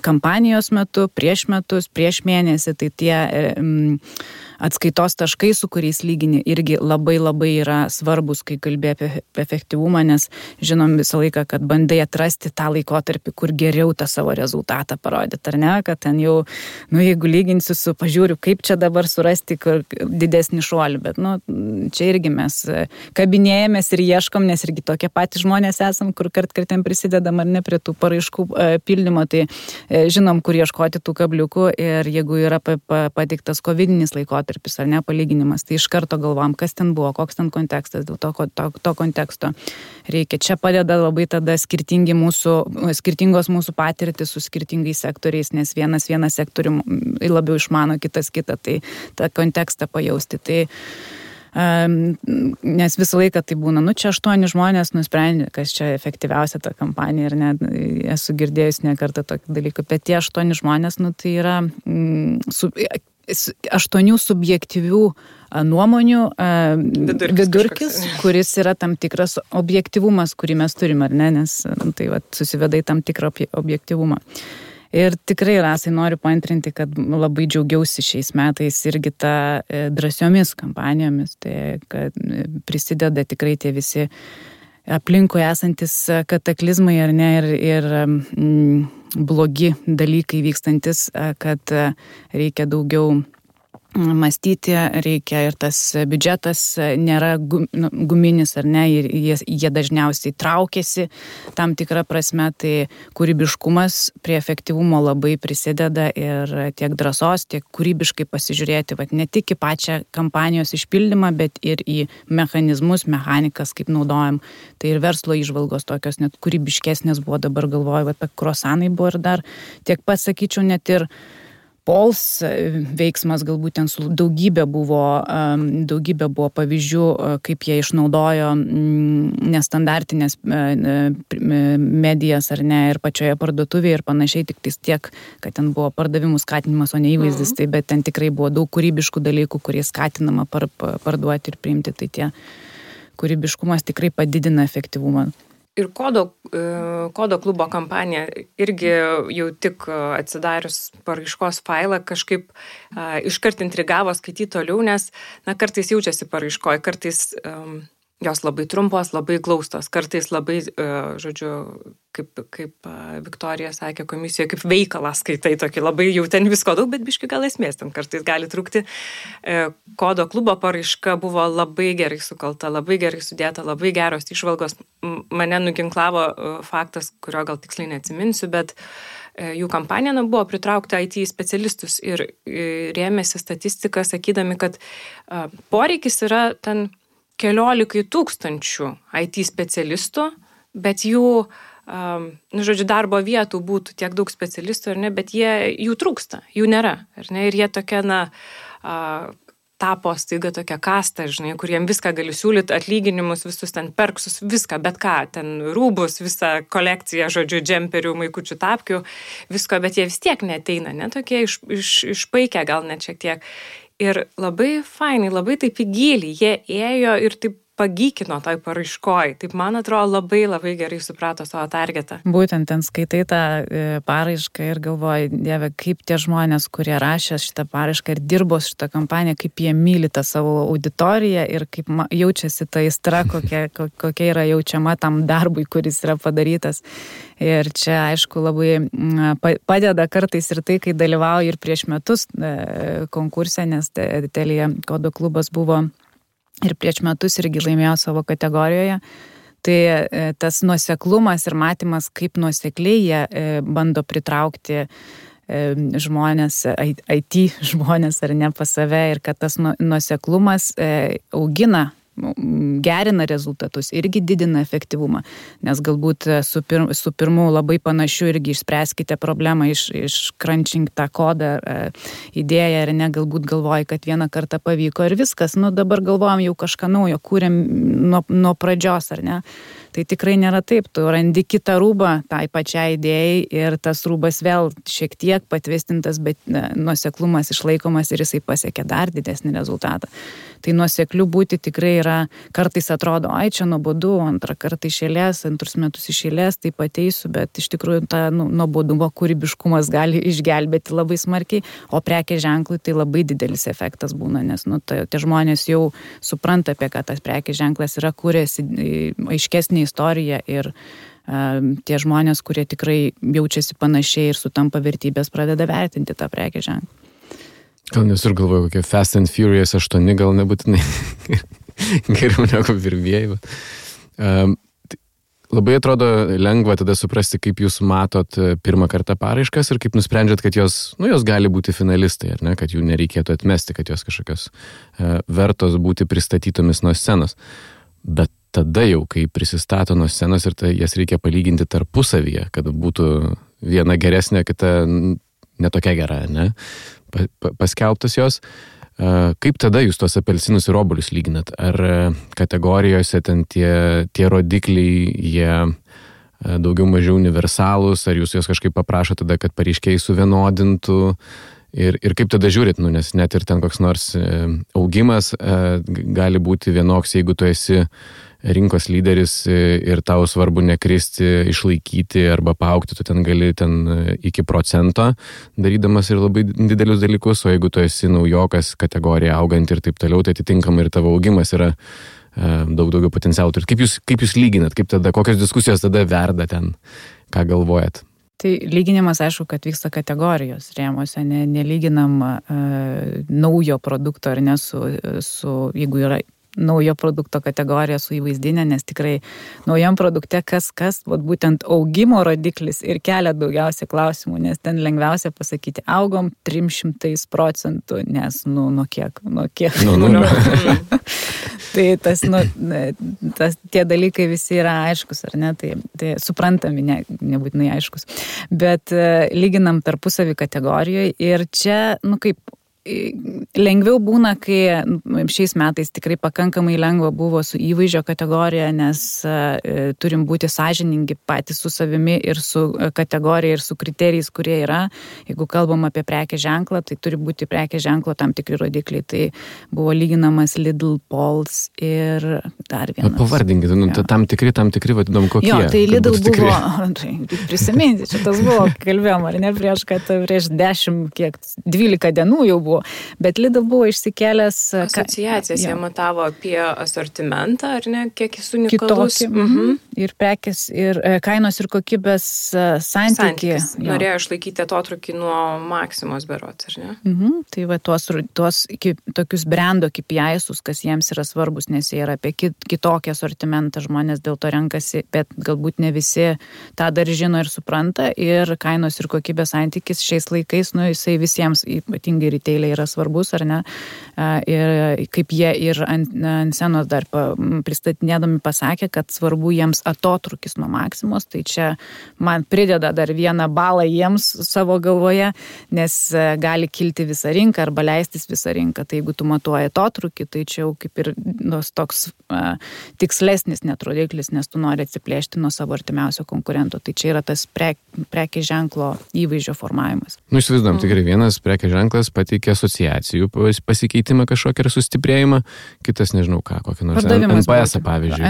kampanijos metu, prieš metus, prieš mėnesį, tai tie atskaitos taškai, su kuriais lygini, irgi labai labai yra svarbus, kai kalbė apie efektyvumą, nes žinom visą laiką, kad bandai atrasti tą laikotarpį, kur geriau tą savo rezultatą parodyti, ar ne, kad ten jau, jeigu lyginsiu su pažiūriu, kaip čia dabar surasti didesnį šuolį, bet, čia irgi mes kabinėjamės ir ieškom, nes irgi tokie patys žmonės esam, kur kartkartėm prisidedam ar ne prie tų paraiškų pildymo, tai žinom, kur ieškoti tų kabliukų ir jeigu yra pateiktas covidinis laikotarpis, ar ne, palyginimas, tai iš karto galvom, kas ten buvo, koks ten kontekstas, dėl to konteksto reikia. Čia padeda labai tada skirtingos mūsų patirtis su skirtingais sektoriais, nes vienas sektorių labiau išmano, kitas kitą, tai tą kontekstą pajausti. Tai nes visą laiką tai būna, čia 8 žmonės nusprendė, kas čia efektyviausia ta kampanija ir net esu girdėjus ne kartą tokį dalyką, bet tie 8 žmonės, tai yra 8 subjektyvių nuomonių vidurkis, kuris yra tam tikras objektyvumas, kurį mes turime, ar ne, nes tai susiveda į tam tikrą objektyvumą. Ir tikrai, Rasai, noriu paantrinti, kad labai džiaugiausi šiais metais irgi tą drąsiomis kampanijomis, tai kad prisideda tikrai tie visi aplinkui esantis kataklizmai ar ne ir blogi dalykai vykstantis, kad reikia daugiau mąstyti, reikia ir tas biudžetas nėra guminis ar ne, ir jie dažniausiai traukiasi tam tikrą prasme, tai kūrybiškumas prie efektyvumo labai prisideda ir tiek drąsos, tiek kūrybiškai pasižiūrėti, ne tik į pačią kampanijos išpildymą, bet ir į mechanizmus, mechanikas, kaip naudojam. Tai ir verslo įžvalgos tokios net kūrybiškesnės buvo, dabar galvoju, apie kruasanai buvo ir dar tiek pasakyčiau, net ir Pols veiksmas galbūt ten su daugybė buvo pavyzdžių, kaip jie išnaudojo nestandartinės medijas ar ne ir pačioje parduotuvėje ir panašiai, tik tiek, kad ten buvo pardavimų skatinimas, o ne įvaizdis, tai bet ten tikrai buvo daug kūrybiškų dalykų, kurie skatinama parduoti ir priimti, tai tie kūrybiškumas tikrai padidina efektyvumą. Ir kodo klubo kampanija irgi jau tik atsidarius paraiškos failą kažkaip iškart intrigavo skaityti toliau, nes kartais jaučiasi paraiškoje, kartais jos labai trumpos, labai glaustos, kartais labai, kaip Viktorija sakė komisijoje, kaip veikalą skaitai tokį, labai jau ten visko daug, bet biški gal esmės ten kartais gali trūkti. Kodo klubo paraiška buvo labai gerai sukalta, labai gerai sudėta, labai geros įžvalgos. Mane nuginklavo faktas, kurio gal tiksliai neatsiminsiu, bet jų kampanija buvo pritraukti IT specialistus ir rėmėsi statistiką, sakydami, kad poreikis yra ten 14 000 IT specialistų, bet jų, darbo vietų būtų tiek daug specialistų, ar ne, bet jų trūksta, jų nėra, ar ne, ir jie tokia, tapo staiga tokia kasta, kur jiem viską gali siūlyti, atlyginimus, visus ten perksus, viską, bet ką, ten rūbus, visą kolekciją, džemperių, maikučių tapkių, visko, bet jie vis tiek neteina, ne, tokie išpaikę gal net šiek tiek. Ir labai fainai, labai taip į gilį, jie ėjo ir taip pagykino toj paraiškoj. Taip, man atrodo, labai labai gerai suprato savo targetą. Būtent ten skaitai tą paraišką ir galvoji, Dieve, kaip tie žmonės, kurie rašė šitą paraišką ir dirbo šitą kampaniją, kaip jie myli tą savo auditoriją ir kaip jaučiasi ta aistra, kokia yra jaučiama tam darbui, kuris yra padarytas. Ir čia, aišku, labai padeda kartais ir tai, kai dalyvauji ir prieš metus konkurse, nes Telia kodo klubas buvo ir prieš metus irgi laimėjo savo kategorijoje. Tai tas nuoseklumas ir matymas, kaip nuosekliai jie bando pritraukti žmonės, IT žmonės ar ne pas save ir kad tas nuoseklumas augina, gerina rezultatus, irgi didina efektyvumą, nes galbūt su pirmu labai panašiu irgi išspręskite problemą, iškrančink tą kodą, idėją ir ne, galbūt galvoji, kad vieną kartą pavyko ir viskas, dabar galvojam jau kažką naujo, kūrėm nuo pradžios, ar ne? Tai tikrai nėra taip, tu randi kitą rūbą tai pačiai idėjai ir tas rūbas vėl šiek tiek patvirtintas, bet nuoseklumas išlaikomas ir jisai pasiekia dar didesnį rezultatą. Tai nuosekliu būti tikrai yra, kartais atrodo, čia nuobodu, antrą kartą iš eilės, antrus metus iš eilės, taip ateisiu, bet iš tikrųjų ta nuobodumo kūrybiškumas gali išgelbėti labai smarkiai, o prekės ženklui tai labai didelis efektas būna, nes tie žmonės jau supranta, apie ką tas prekės ženklas yra, kūrėsi aiškesnį istoriją ir tie žmonės, kurie tikrai jaučiasi panašiai ir sutampa vertybės, pradeda vertinti tą prekės ženklą. Gal nes ir galvoju, kokie Fast and Furious 8 gal nebūtinai geriau negu pirmieji. Labai atrodo lengva tada suprasti, kaip jūs matot pirmą kartą paraiškas ir kaip nusprendžiat, kad jos gali būti finalistai, ar ne, kad jų nereikėtų atmesti, kad jos kažkokios vertos būti pristatytomis nuo scenos. Bet tada jau, kai prisistato nuo scenos ir jas reikia palyginti tarpusavyje, kad būtų viena geresnė, kita netokia gera, ne? Paskelbtas jos. Kaip tada jūs tos apelsinus ir obuolius lyginat? Ar kategorijose ten tie rodikliai, jie daugiau mažiau universalūs, ar jūs jos kažkaip paprašo tada, kad pareiškėjai suvienodintų? Ir kaip tada žiūrit, nes net ir ten koks nors augimas gali būti vienoks, jeigu tu esi rinkos lyderis ir tau svarbu nekristi, išlaikyti arba paaugti, tu ten gali iki 1% darydamas ir labai didelius dalykus, o jeigu tu esi naujokas, kategorija augant ir taip toliau, tai atitinkamai ir tavo augimas yra daug daugiau potencialų. Kaip jūs lyginat, kokios diskusijos tada verda ten, ką galvojat? Tai lyginimas, aišku, kad vyksta kategorijos rėmose, nelyginam naujo produkto ar ne su jeigu yra naujo produkto kategorija su įvaizdinė, nes tikrai naujam produkte kas, būtent augimo rodiklis ir kelia daugiausiai klausimų, nes ten lengviausia pasakyti, augom 300%, nes, nuo kiek? Tai tie dalykai visi yra aiškus, ar ne, tai suprantami, nebūtinai aiškus, bet lyginam tarpusavį kategorijoje ir čia, kaip lengviau būna, kai šiais metais tikrai pakankamai lengva buvo su įvaizdžio kategorija, nes turim būti sąžiningi patys su savimi ir su kategorija ir su kriterijais, kurie yra. Jeigu kalbam apie prekės ženklą, tai turi būti prekės ženklo tam tikri rodikliai. Tai buvo lyginamas Lidl, Pols ir dar vienas. Pavardinkit, tam tikri vadinam kokie. Jo, tai Lidl buvo, prisiminti, šitas buvo, kalbėjom, ar ne, prieš 12 dienų jau buvo. Bet Lidl buvo išsikėlęs... Asociacijas jie matavo apie asortimentą, ar ne, kiek jis unikalus. Ir prekės, ir kainos ir kokybės santykis. Norėjo išlaikyti atotrukį nuo Maksimos berods, ar ne? Tai va tuos tokius brando KPI-sus, kas jiems yra svarbus, nes jie yra apie kitokį asortimentą, žmonės dėl to renkasi, bet galbūt ne visi tą dar žino ir supranta. Ir kainos ir kokybės santykis šiais laikais, jisai visiems, ypatingai retailai, yra svarbus, ar ne? Ir kaip jie ir ant scenos dar pristatinėdami pasakė, kad svarbu jiems atotrukis nuo Maksimos, tai čia man prideda dar vieną balą jiems savo galvoje, nes gali kilti visą rinką arba leistis visą rinką. Tai jeigu tu matuoji atotrukį, tai čia jau kaip ir toks tikslesnis net rodiklis, nes tu nori atsiplėšti nuo savo artimiausio konkurento. Tai čia yra tas prekės ženklo įvaizdžio formavimas. Įsivaizduojam, tikrai vienas prekės ženklas pateikia asociacijų pasikeitimą kažkokį ir sustiprėjimą, kitas nežinau ką, kokį nors NPS, pavyzdžiui.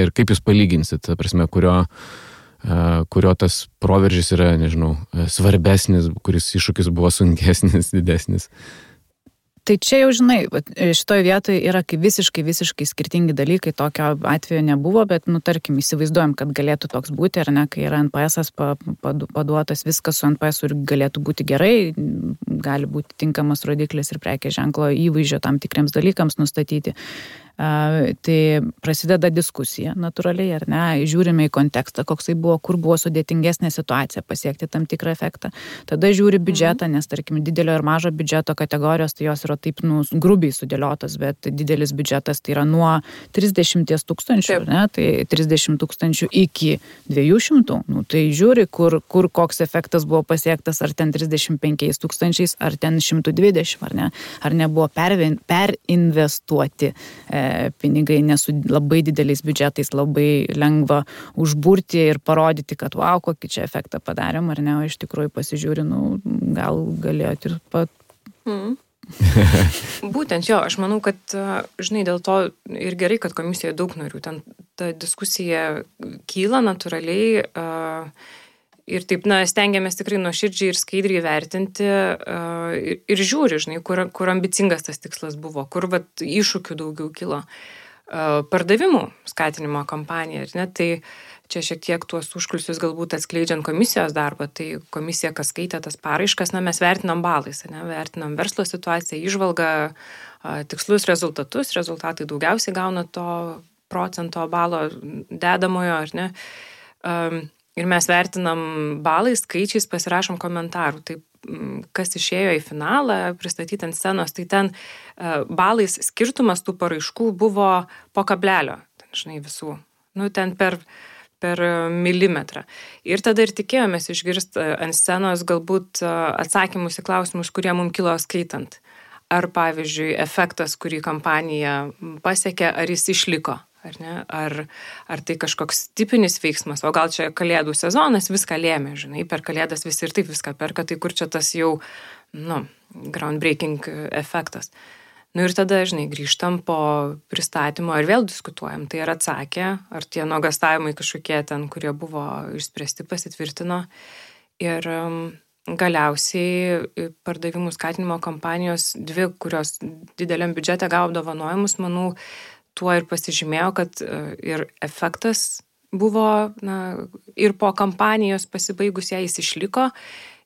Ir kaip jūs palyginsit, ta prasme, kurio tas proveržis yra, nežinau, svarbesnis, kuris iššūkis buvo sunkesnis, didesnis. Tai čia jau žinai, šitoje vietoje yra kaip visiškai skirtingi dalykai, tokio atveju nebuvo, bet, tarkim, įsivaizduojam, kad galėtų toks būti, ar ne, kai yra NPS-as paduotas, viskas su NPS ir galėtų būti gerai, gali būti tinkamas rodiklis ir prekės ženklo įvaizdžio tam tikriems dalykams nustatyti. Tai prasideda diskusija natūraliai, ar ne, žiūrime į kontekstą, koksai buvo, kur buvo sudėtingesnė situacija pasiekti tam tikrą efektą. Tada žiūri biudžetą, nes, tarkim, didelio ir mažo biudžeto kategorijos, tai jos yra taip, grubiai sudėliotas, bet didelis biudžetas tai yra nuo 30 000, ne, tai 30 000 iki 200, tai žiūri, kur koks efektas buvo pasiektas, ar ten 35 000, ar ten 120, ar ne, ar nebuvo perinvestuoti pinigai, nes su labai dideliais biudžetais labai lengva užburti ir parodyti, kad wow, kokį čia efektą padarėm, ar ne, o iš tikrųjų pasižiūri, gal galėjot ir Būtent jo, aš manau, kad, žinai, dėl to ir gerai, kad komisijoje daug narių, ten ta diskusija kyla natūraliai ir taip, stengiamės tikrai nuoširdžiai ir skaidriai vertinti ir žiūri, žinai, kur ambicingas tas tikslas buvo, kur iššūkių daugiau kilo. Pardavimų skatinimo kampanija, ne, tai čia šiek tiek tuos užkulisius galbūt atskleidžiant komisijos darbą, tai komisija, kas skaitė tas paraiškas, mes vertinam balais, ne, vertinam verslo situaciją, įžvalgą, tikslus rezultatus, rezultatai daugiausiai gauna to procento balo dedamojo, ar ne, ir mes vertinam balais, skaičiais, pasirašom komentarų, taip, kas išėjo į finalą, pristatyti ant scenos, tai ten balais skirtumas tų paraiškų buvo po kablelio, žinai, visų, ten per milimetrą. Ir tada ir tikėjomės išgirsti ant scenos galbūt atsakymus į klausimus, kurie mums kilo skaitant. Ar, pavyzdžiui, efektas, kurį kampanija pasiekė, ar jis išliko, ar ne? Ar tai kažkoks tipinis veiksmas, o gal čia kalėdų sezonas viską lėmė, žinai, per kalėdas visi ir taip viską perka, tai kur čia tas jau, groundbreaking efektas. Nu ir tada, žinai, grįžtam po pristatymo ir vėl diskutuojam. Tai ar atsakė, ar tie nuogastavimai kažkokie ten, kurie buvo išspręsti, pasitvirtino. Ir galiausiai pardavimų skatinimo kampanijos dvi, kurios dideliam biudžete gavo apdovanojimus, manau, tuo ir pasižymėjo, kad ir efektas buvo, ir po kampanijos pasibaigus ją jis išliko.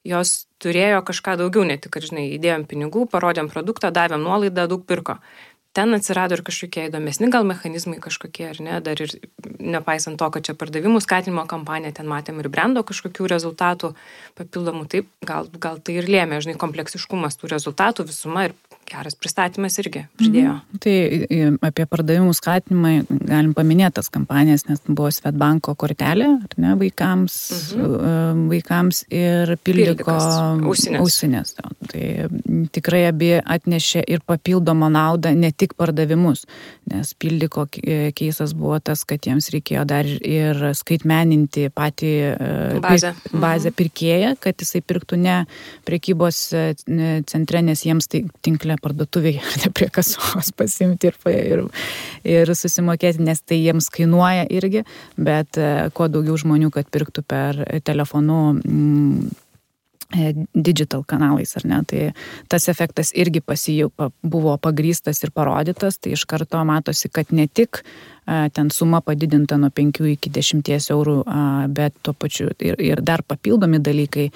Jos turėjo kažką daugiau, ne tik, kad, žinai, įdėjom pinigų, parodėm produktą, davėm nuolaidą, daug pirko. Ten atsirado ir kažkokie įdomesni gal mechanizmai kažkokie, ar ne, dar ir nepaisant to, kad čia pardavimų skatinimo kampanija, ten matėm ir brendo kažkokių rezultatų papildomų, taip, gal tai ir lėmė, žinai, kompleksiškumas tų rezultatų, visuma ir geras pristatymas irgi pridėjo. Tai apie pardavimų skatinimą galim paminėti tas kampanijas, nes buvo Svetbanko kortelė, ar ne, vaikams ir Pildiko ausinės. Tai tikrai abi atnešė ir papildomą naudą, ne tik pardavimus, nes Pildiko keisas buvo tas, kad jiems reikėjo dar ir skaitmeninti patį bazę pirkėją, kad jisai pirktų ne prekybos centre, nes jiems tai tinklė parduotuvėje, ne prie kasos pasimti ir susimokėti, nes tai jiems kainuoja irgi, bet kuo daugiau žmonių, kad pirktų per telefonu digital kanalais, ar ne, tai tas efektas irgi buvo pagrįstas ir parodytas, tai iš karto matosi, kad ne tik ten suma padidinta nuo 5 iki 10 eurų, bet tuo pačiu ir dar papildomi dalykai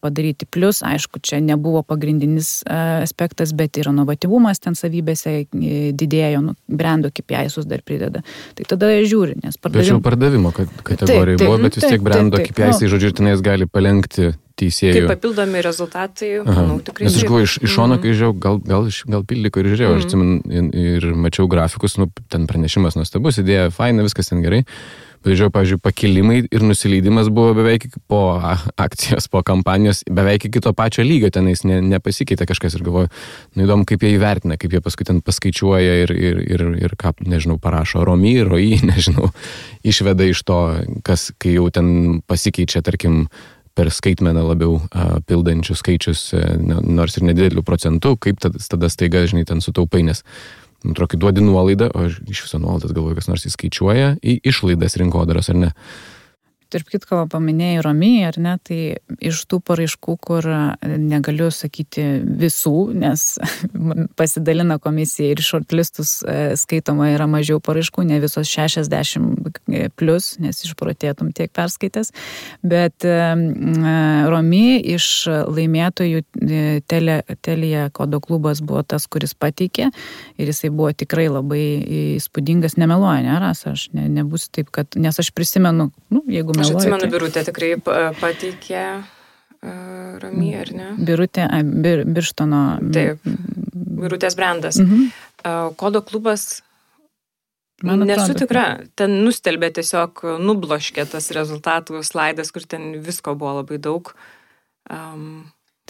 padaryti. Plus, aišku, čia nebuvo pagrindinis aspektas, bet ir inovatyvumas ten savybėse didėjo, brendo KPI-sus dar prideda. Tai tada žiūri, nes pardavimo kategorijai buvo, bet vis tiek brendo KPI-sai, žodžiu, tenais gali palenkti teisėjų. Kaip papildomi rezultatai, manau, tikrai. Nes aš galvoju, iš šono, kai žiūrėjau, gal Pildiko ir žiūrėjau, aš atsimenu ir mačiau grafikus, ten pranešimas nuostabus, idėja, faina, viskas ten gerai. Bet žiūrėjau, pavyzdžiui, pakilimai ir nusileidimas buvo beveik po akcijos, po kampanijos, beveik iki to pačio lygio, tenais nepasikeitė kažkas ir galvoju, įdomu, kaip jie įvertina, kaip jie paskui ten paskaičiuoja ir ką, nežinau, parašo ROI, nežinau, išveda iš to, kas, kai jau ten pasikeičia, tarkim, per skaitmeną labiau pildančių skaičius, nors ir nedidelių procentų, kaip tada staiga, žinai, ten sutaupai, nes atrodo, duodi nuolaidą, o iš viso nuolaidas galvoju, kas nors įskaičiuoja į išlaidas rinkodaros, ar ne? Tarp kitko paminėjai ROI, ar ne, tai iš tų paraiškų, kur negaliu sakyti visų, nes pasidalina komisija ir shortlistus skaitoma yra mažiau paraiškų, ne visos 60 plus, nes išprotėtum tiek perskaitęs, bet ROI iš laimėtojų Telia Kodo klubas buvo tas, kuris pateikė ir jisai buvo tikrai labai įspūdingas, nemeluoja, ne, Rasa, aš nebūsiu taip, kad, nes aš prisimenu, jeigu aš atsimenu, Birutė tikrai pateikė ROI, ar ne? Birutė, Birštono. Taip, Birutės brandas. Kodo klubas, nesu tikra, ten nustelbė tiesiog, nubloškė tas rezultatų slaidas, kur ten visko buvo labai daug.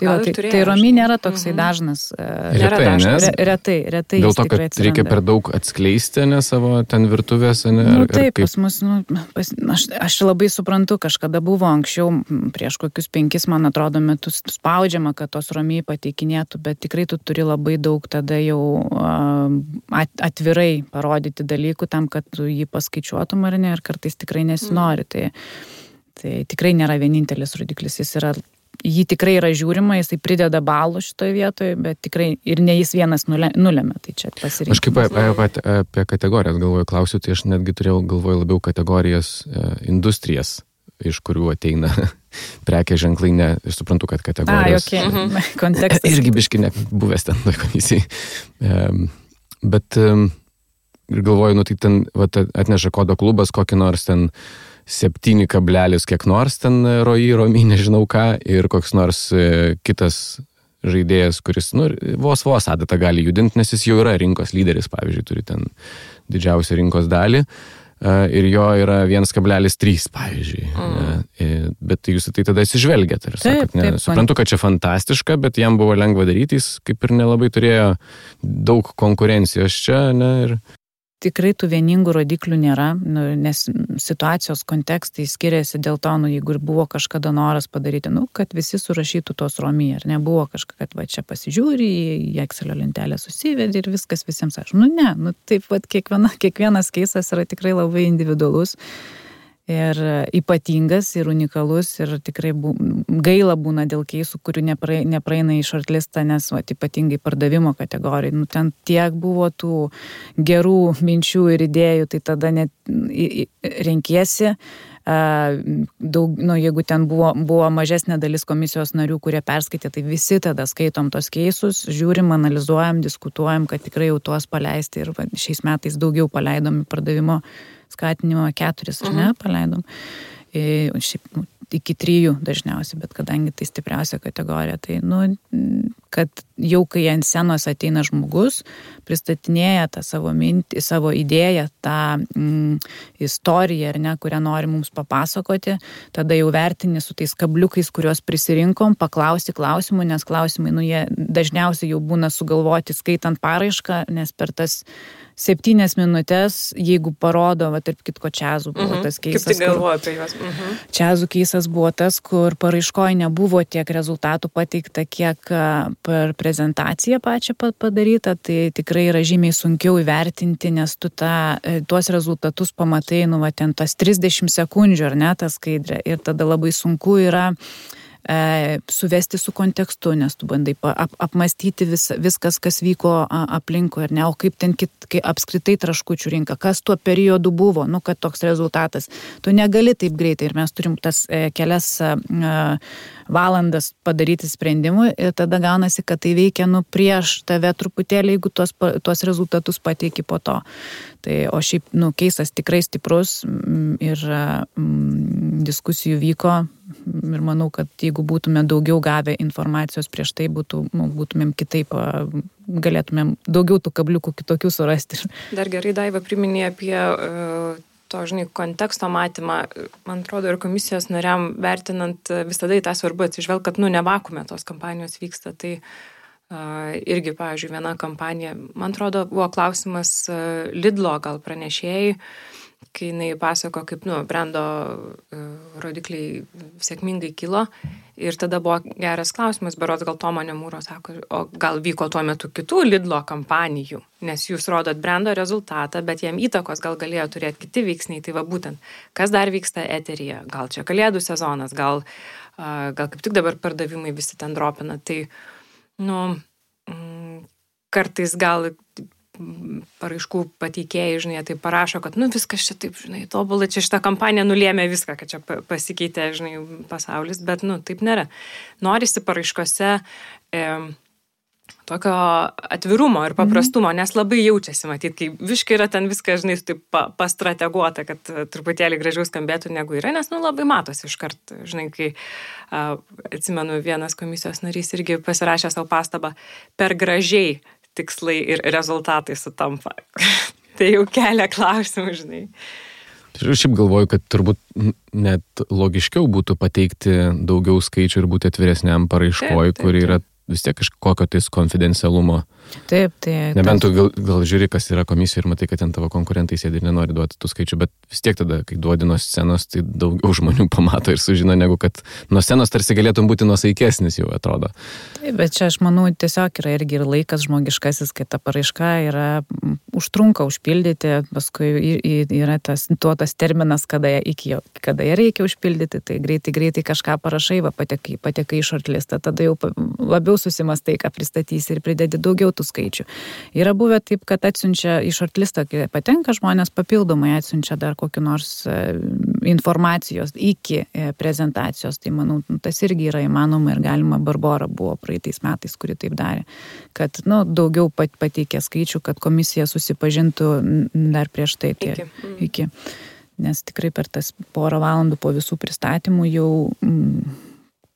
Tai ROI nėra toksai dažnas. Retai. Dėl to, kad reikia per daug atskleisti, ne, savo ten virtuvės, ne? Taip, pas mus, aš labai suprantu, kažkada buvo anksčiau, prieš kokius 5, man atrodo, metus spaudžiama, kad tos ROI pateikinėtų, bet tikrai tu turi labai daug tada jau atvirai parodyti dalykų tam, kad tu jį paskaičiuotum ar ne, ir kartais tikrai nesinori. Tai tikrai nėra vienintelis rodiklis, jį tikrai yra žiūrima, jisai prideda balų šitoje vietoje, bet tikrai ir ne jis vienas nulėmė, tai čia pasirinkimas. Aš kaip apie kategorijas galvoju, klausiu, tai aš netgi turėjau galvoju labiau kategorijas industrijas, iš kurių ateina prekė ženklai, ne, aš suprantu, kad kategorijos. Kontekstas. Irgi biški buvęs ten komisijai. Bet ir galvoju, tai ten atneša Kodo klubas kokį nors ten 7 kablelis kiek nors ten ROI, nežinau ką, ir koks nors kitas žaidėjas, kuris vos adatą gali judinti, nes jis jau yra rinkos lyderis, pavyzdžiui, turi ten didžiausią rinkos dalį, ir jo yra 1,3, pavyzdžiui. Bet jūs tai tada atsižvelgiat, ir sakot, suprantu, kad čia fantastiška, bet jam buvo lengva daryti, jis kaip ir nelabai turėjo daug konkurencijos čia, ne, ir tikrai tų vieningų rodiklių nėra, nes situacijos kontekstai skiriasi dėl to, jeigu ir buvo kažkada noras padaryti, kad visi surašytų tos romy, ar nebuvo kažką, kad va čia pasižiūri, į Excelio lentelę susivedi ir viskas visiems aš. Taip pat kiekvienas keisas yra tikrai labai individualus ir ypatingas ir unikalus ir tikrai gaila būna dėl keisų, kurių nepraeina į shortlistą, nes ypatingai pardavimo kategorijai. Ten tiek buvo tų gerų minčių ir idėjų, tai tada net renkiesi. Jeigu ten buvo mažesnė dalis komisijos narių, kurie perskaitė, tai visi tada skaitom tos keisus, žiūrim, analizuojam, diskutuojam, kad tikrai jau tuos paleisti ir šiais metais daugiau paleidom pardavimo skatinimo 4, ar ne, paleidom. Šiaip iki 3 dažniausiai, bet kadangi tai stipriausia kategorija, tai, kad jau kai ant scenos ateina žmogus, pristatinėja tą savo mintį, savo idėją, tą istoriją, ar ne, kurią nori mums papasakoti, tada jau vertini su tais kabliukais, kuriuos prisirinkom, paklausti klausimų, nes klausimai, jie dažniausiai jau būna sugalvoti skaitant paraišką, nes per tas 7 minutės, jeigu parodo, tarp kitko čiazų buvo tas keisas. Kaip tai galvoju apie juos? Čiazų keisas buvo tas, kur paraiškoje nebuvo tiek rezultatų pateikta, kiek per prezentaciją pačią padaryta, tai tikrai yra žymiai sunkiau įvertinti, nes tu tuos rezultatus pamatai, ten tas 30 sekundžių, ar ne, ta skaidrė, ir tada labai sunku yra suvesti su kontekstu, nes tu bandai apmastyti viskas, kas vyko aplinkui, ar ne, o kaip ten apskritai traškučių rinka, kas tuo periodu buvo, kad toks rezultatas. Tu negali taip greitai ir mes turim tas kelias valandas padaryti sprendimų ir tada gaunasi, kad tai veikia prieš tave truputėlį, jeigu tuos rezultatus pateiki po to. Tai, o šiaip, keisas tikrai stiprus ir diskusijų vyko ir manau, kad jeigu būtume daugiau gavę informacijos prieš tai, būtumėm kitaip, galėtumėm daugiau tų kabliukų kitokių surasti. Dar gerai, Daiva, priminė apie to, konteksto matymą. Man atrodo, ir komisijos nariam vertinant visada į tą svarbu atsižvelgti, kad, ne vakuume tos kampanijos vyksta. Tai irgi, pavyzdžiui, viena kampanija, man atrodo, buvo klausimas Lidlo gal pranešėjai, kai jinai pasako, kaip, brendo rodikliai sėkmingai kilo. Ir tada buvo geras klausimas, berods gal Tomonė Mūro sako, o gal vyko tuo metu kitų Lidlo kampanijų, nes jūs rodot brendo rezultatą, bet jam įtakos gal galėjo turėti kiti veiksniai. Tai va būtent, kas dar vyksta eteryje, gal čia kalėdų sezonas, gal kaip tik dabar pardavimai visi ten dropina. Tai, kartais gal paraiškų pateikėjai, tai parašo, kad, viskas čia taip, tobulai, čia šitą kampaniją nulėmė viską, kad čia pasikeitė, pasaulis, bet, taip nėra. Norisi paraiškose tokio atvirumo ir paprastumo, nes labai jaučiasi, matyt, kai viškai yra ten viskas, taip pastrateguota, kad truputėlį gražiau skambėtų negu yra, nes, labai matosi iškart, kai atsimenu, vienas komisijos narys irgi pasirašė savo pastabą, per gražiai tikslai ir rezultatai sutampa. Tai jau kelia klausimų, Šiaip galvoju, kad turbūt net logiškiau būtų pateikti daugiau skaičių ir būti atviresniam paraiškoj, kur yra vis tiek kažkokio tais konfidencialumo. Taip. Nebent tu gal žiūri, kas yra komisija ir matai, kad ten tavo konkurentai sėdi ir nenori duoti tų skaičių, bet vis tiek tada, kai duodi nuo scenos, tai daugiau žmonių pamato ir sužino, negu kad nuo scenos tarsi galėtum būti nuosaikesnis, jau atrodo. Taip, bet čia aš manau, tiesiog yra irgi ir laikas žmogiškasis, kai ta paraiška užtrunka užpildyti, paskui yra tas terminas, kada ją reikia užpildyti, tai greitai kažką parašai, patekai į shortlistą, tada jau labiau susimastai, ką pristatysi ir pridedi daugiau tų skaičių. Yra buvę taip, kad atsiunčia į shortlistą, kai patenka žmonės papildomai atsiunčia dar kokį nors informacijos iki prezentacijos, tai manau, tas irgi yra įmanoma ir galima. Barbora buvo praeitais metais, kuri taip darė, kad daugiau pateikė skaičių, kad komisija susipažintų dar prieš tai iki. Nes tikrai per tas porą valandų po visų pristatymų jau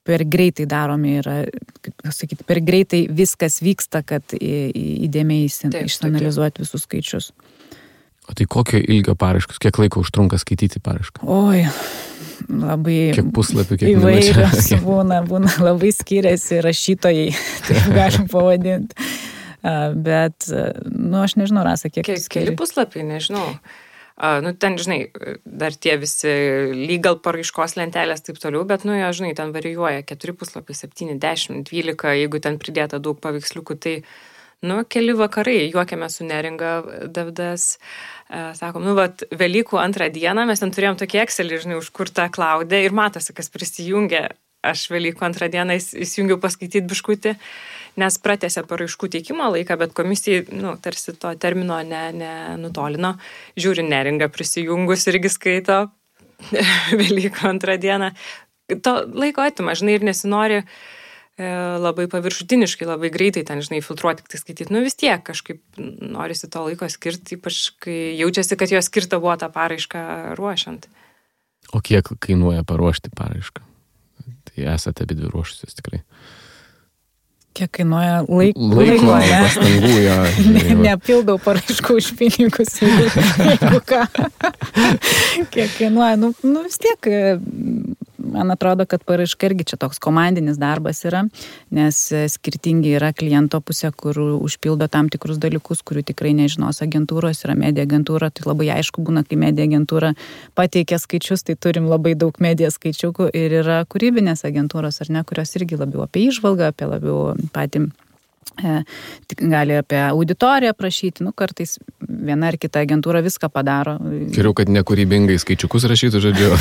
per greitai daromi yra, kaip sakyti, per greitai viskas vyksta, kad įdėmiai išanalizuoti visus skaičius. O tai kokio ilgio paraiškos, kiek laiko užtrunka skaityti paraišką? Oi, labai kiek puslapių, kiek įvairios būna, labai skiriasi rašytojai, taip galim pavadinti. Bet, aš nežinau, Rasa, kiek... Keli puslapiai, nežinau. Ten, žinai, dar tie visi legal paraiškos lentelės taip toliau, bet, žinai, ten varijuoja 4 puslapiai, 7, 10, 12, jeigu ten pridėta daug paveiksliukų, tai, keli vakarai, juokėme su Neringa Davidas, sakom, Velykų 2 dieną, mes ten turėjom tokį Excelį, žinai, užkurtą klaudę ir matosi, kas prisijungė, aš Velykų 2 dieną įsijungiau paskaityti biškutį, nes pratęsė paraiškų teikimo laiką, bet komisijai, tarsi to termino nenutolino. Žiūri, Neringa prisijungus irgi skaito Velykų 2 dieną. To laiko atima, žinai, ir nesinori labai paviršutiniškai, labai greitai ten, žinai, filtruoti, tik tai skaityti. Vis tiek kažkaip norisi to laiko skirti, ypač kai jaučiasi, kad jo skirta buvo tą paraišką ruošiant. O kiek kainuoja paruošti paraišką? Tai esate abidvi ruošusios tikrai. Kiek kainuoja laiko, pastangų, jo. Nepildau paraiškų už pinigus, jeigu ką. Kiek kainuoja, vis tiek, man atrodo, kad paraiška irgi čia toks komandinis darbas yra, nes skirtingi yra kliento pusė, kur užpildo tam tikrus dalykus, kurių tikrai nežinos agentūros, yra media agentūra, tai labai aišku būna, kai media agentūra pateikia skaičius, tai turim labai daug media skaičiukų ir yra kūrybinės agentūros, ar ne, kurios irgi labiau apie įžvalgą, apie labiau patį gali apie auditoriją prašyti, kartais viena ar kita agentūra viską padaro. Geriau, kad nekūrybingai skaičiukus rašytų, žodžiu.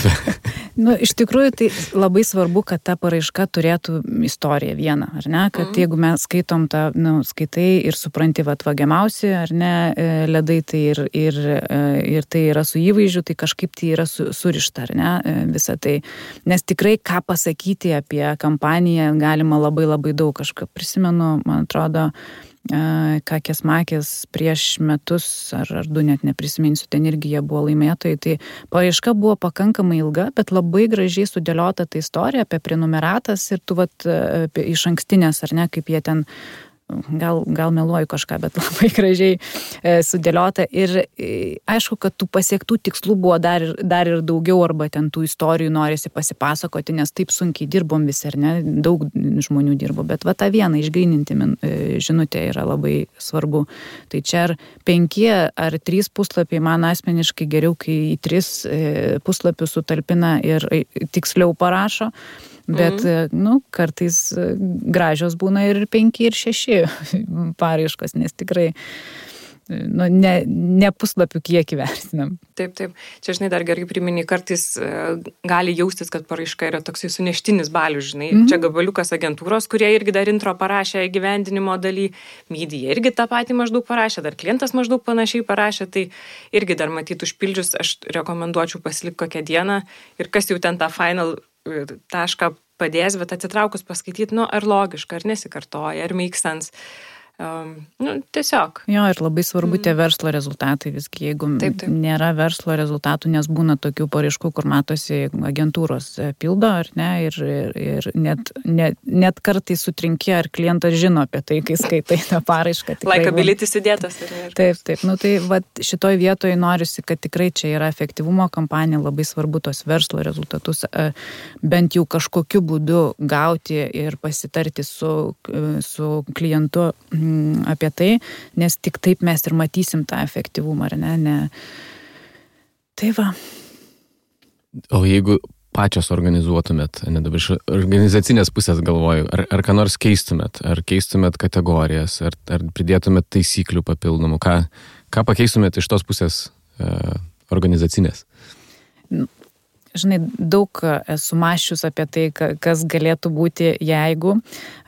Iš tikrųjų, tai labai svarbu, kad ta paraiška turėtų istoriją vieną, ar ne? Kad jeigu mes skaitom tą, skaitai ir supranti, vagiamiausi, ar ne, ledai, tai ir tai yra su įvaizdžiu, tai kažkaip tai yra surišta, ar ne, visą tai. Nes tikrai ką pasakyti apie kampaniją galima labai labai daug. Kažką prisimenu, man atrodo, Kakės Makės prieš metus ar 2 net neprisiminsiu, ten irgi jie buvo laimėtojai, tai paraiška buvo pakankamai ilga, bet labai gražiai sudėliota ta istorija apie prenumeratas ir tu apie iš ankstinės, ar ne, kaip jie ten gal meluoju kažką, bet labai gražiai sudėliota ir aišku, kad tų pasiektų tikslų buvo dar ir daugiau arba ten tų istorijų norisi pasipasakoti, nes taip sunkiai dirbom visi, ar ne, daug žmonių dirbo, bet tą vieną išgryninti žinutę yra labai svarbu. Tai čia ar 5 ar 3 puslapiai man asmeniškai geriau, kai į 3 puslapius sutalpina ir tiksliau parašo. Bet, kartais gražios būna ir 5 ir 6 paraiškos, nes tikrai ne puslapių kiekį vertinam. Taip. Čia, žinai, dar gerai priminį, kartais gali jaustis, kad paraiška yra toksai suneštinis balius, žinai. Čia gabaliukas agentūros, kurie irgi dar intro parašė įgyvendinimo daly, media irgi tą patį maždaug parašė, dar klientas maždaug panašiai parašė, tai irgi dar matyt užpildžius, aš rekomenduočiau pasilikti kokią dieną ir kas jau ten tą final tašką padės, bet atsitraukus paskaityti, ar logiška, ar nesikartoja, ar make sense. Tiesiog. Jo, ir labai svarbu tie verslo rezultatai visgi, jeigu taip. Nėra verslo rezultatų, nes būna tokių paraiškų, kur matosi agentūros pildo, ar ne, ir net kartais sutrinki, ar klientas žino apie tai, kai skaitai tą paraišką. Likeability įdėtas. Taip. Tai šitoj vietoje norisi, kad tikrai čia yra efektyvumo kampanija, labai svarbu tos verslo rezultatus bent jau kažkokiu būdu gauti ir pasitarti su klientu apie tai, nes tik taip mes ir matysim tą efektyvumą, ar ne? Tai va. O jeigu pačios organizuotumėt, dabar iš organizacinės pusės galvoju, ar ką nors keistumėt, ar keistumėt kategorijas, ar pridėtumėt taisyklių papildomų, ką pakeistumėt iš tos pusės organizacinės? Žinai, daug esu mąsčius apie tai, kas galėtų būti jeigu,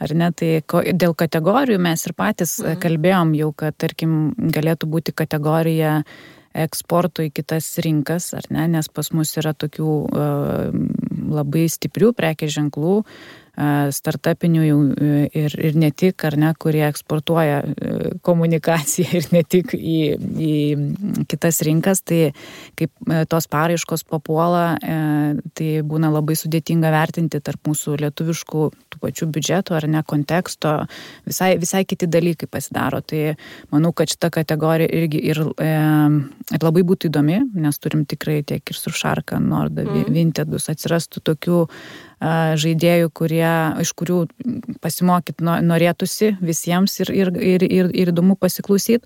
ar ne, tai dėl kategorijų mes ir patys kalbėjom jau, kad, tarkim, galėtų būti kategorija eksporto į kitas rinkas, ar ne, nes pas mus yra tokių labai stiprių prekės ženklų, startupinių ir ne tik, ar ne, kurie eksportuoja komunikaciją ir ne tik į kitas rinkas, tai kaip tos paraiškos papuola, tai būna labai sudėtinga vertinti tarp mūsų lietuviškų tų pačių biudžetų, ar ne, konteksto, visai kiti dalykai pasidaro. Tai manau, kad šita kategorija irgi ir labai būtų įdomi, nes turim tikrai tiek ir Suršarka, Norda, Vintedus, atsirastų tokių žaidėjų, iš kurių pasimokyti norėtųsi visiems ir įdomu pasiklausyti.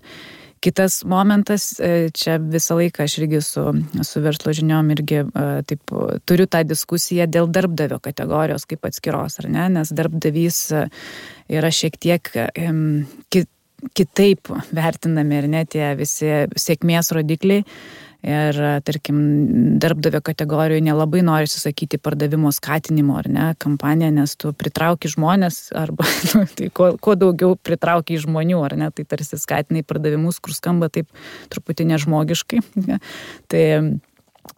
Kitas momentas, čia visą laiką aš irgi su verslo žiniom irgi taip, turiu tą diskusiją dėl darbdavio kategorijos kaip atskiros, ar ne, nes darbdavys yra šiek tiek kitaip vertinami ir ne tie visi sėkmės rodikliai. Ir, tarkim, darbdavio kategorijoje nelabai nori susakyti pardavimo skatinimo, ar ne, kampaniją, nes tu pritrauki žmonės, arba tai kuo daugiau pritrauki žmonių, ar ne, tai tarsi skatinai pardavimus, kur skamba taip truputį nežmogiškai. Tai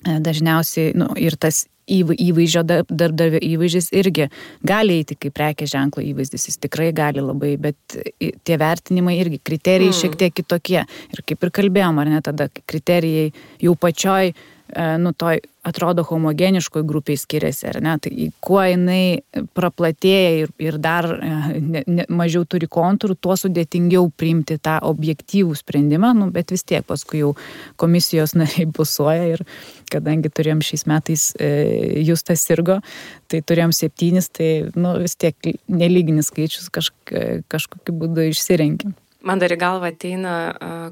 dažniausiai, ir tas įvaizdžio, darbdavio įvaizdis irgi gali eiti kaip prekės ženklo įvaizdis, jis tikrai gali labai, bet tie vertinimai irgi, kriterijai šiek tiek kitokie. Ir kaip ir kalbėjom, ar ne, tada kriterijai jau pačioj, toj atrodo homogeniškoj grupiai skiriasi, ar ne, tai kuo jinai praplatėja ir dar mažiau turi kontūrų, tuo sudėtingiau priimti tą objektyvų sprendimą, bet vis tiek paskui jau komisijos nariai busuoja ir kadangi turėjom šiais metais Justas sirgo, tai turėjom 7, tai vis tiek nelyginis skaičius kažkokiu būdu išsirenkim. Man dar į galvą ateina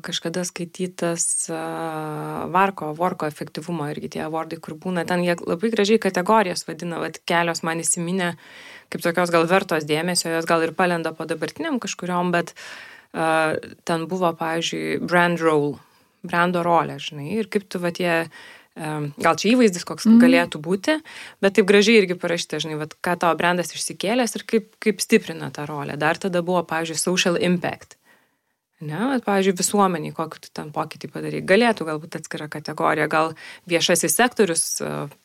kažkada skaitytas Vorko efektyvumo irgi tie awardai, kur būna, ten jie labai gražiai kategorijas vadina, kelios man įsiminė kaip tokios gal vertos dėmesio, jos gal ir palenda po dabartiniam kažkuriom, bet ten buvo, pavyzdžiui, brando rolė, žinai, ir kaip tu gal čia įvaizdis koks galėtų būti, bet taip gražiai irgi parašyta, žinai, ką tavo brandas išsikėlęs ir kaip stiprina tą rolę. Dar tada buvo, pavyzdžiui, social impact. Ne, pavyzdžiui, visuomeniai, kokį tu ten pokytį padarai. Galėtų galbūt atskira kategorija, gal viešasis sektorius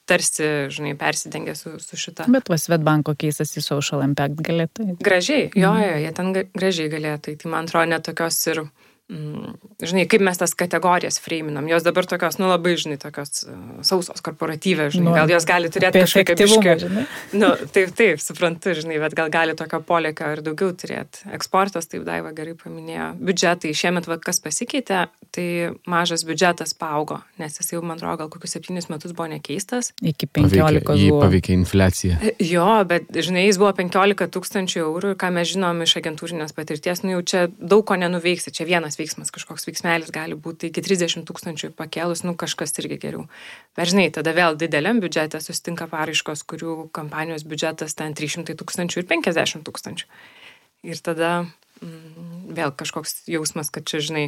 tarsi, žinai, persidengia su šita. Bet Swedbanko keisas į social impact galėtų. Gražiai, jie ten gražiai galėtų. Tai man atrodo net tokios ir, žinai, kaip mes tas kategorijas freiminam. Jos dabar tokios, labai, žinai, tokios sausos korporatyvės, žinai, gal jos gali turėti kažkokią biškį. Taip, suprantu, žinai, bet gal gali tokio polėkio ir daugiau turėti. Eksportas, taip Daiva gerai paminėjo. Biudžetai, šiemet kas pasikeitė, tai mažas biudžetas paaugo, nes jis jau, man atrodo, gal kokius 7 metus buvo nekeistas. Iki 15 buvo. Jį paveikė infliacija. Jo, bet, žinai, jis buvo 15 000 eurų ir ką mes žinom iš agentūrinės patirties, jau čia daug ko nenuveiksi, čia vienas veiksmas, kažkoks veiksmelis gali būti iki 30 000 pakėlus, kažkas irgi geriau. Bet žinai, tada vėl dideliam biudžete susitinka paraiškos, kurių kampanijos biudžetas ten 300 000 ir 50 000. Ir tada vėl kažkoks jausmas, kad čia, žinai,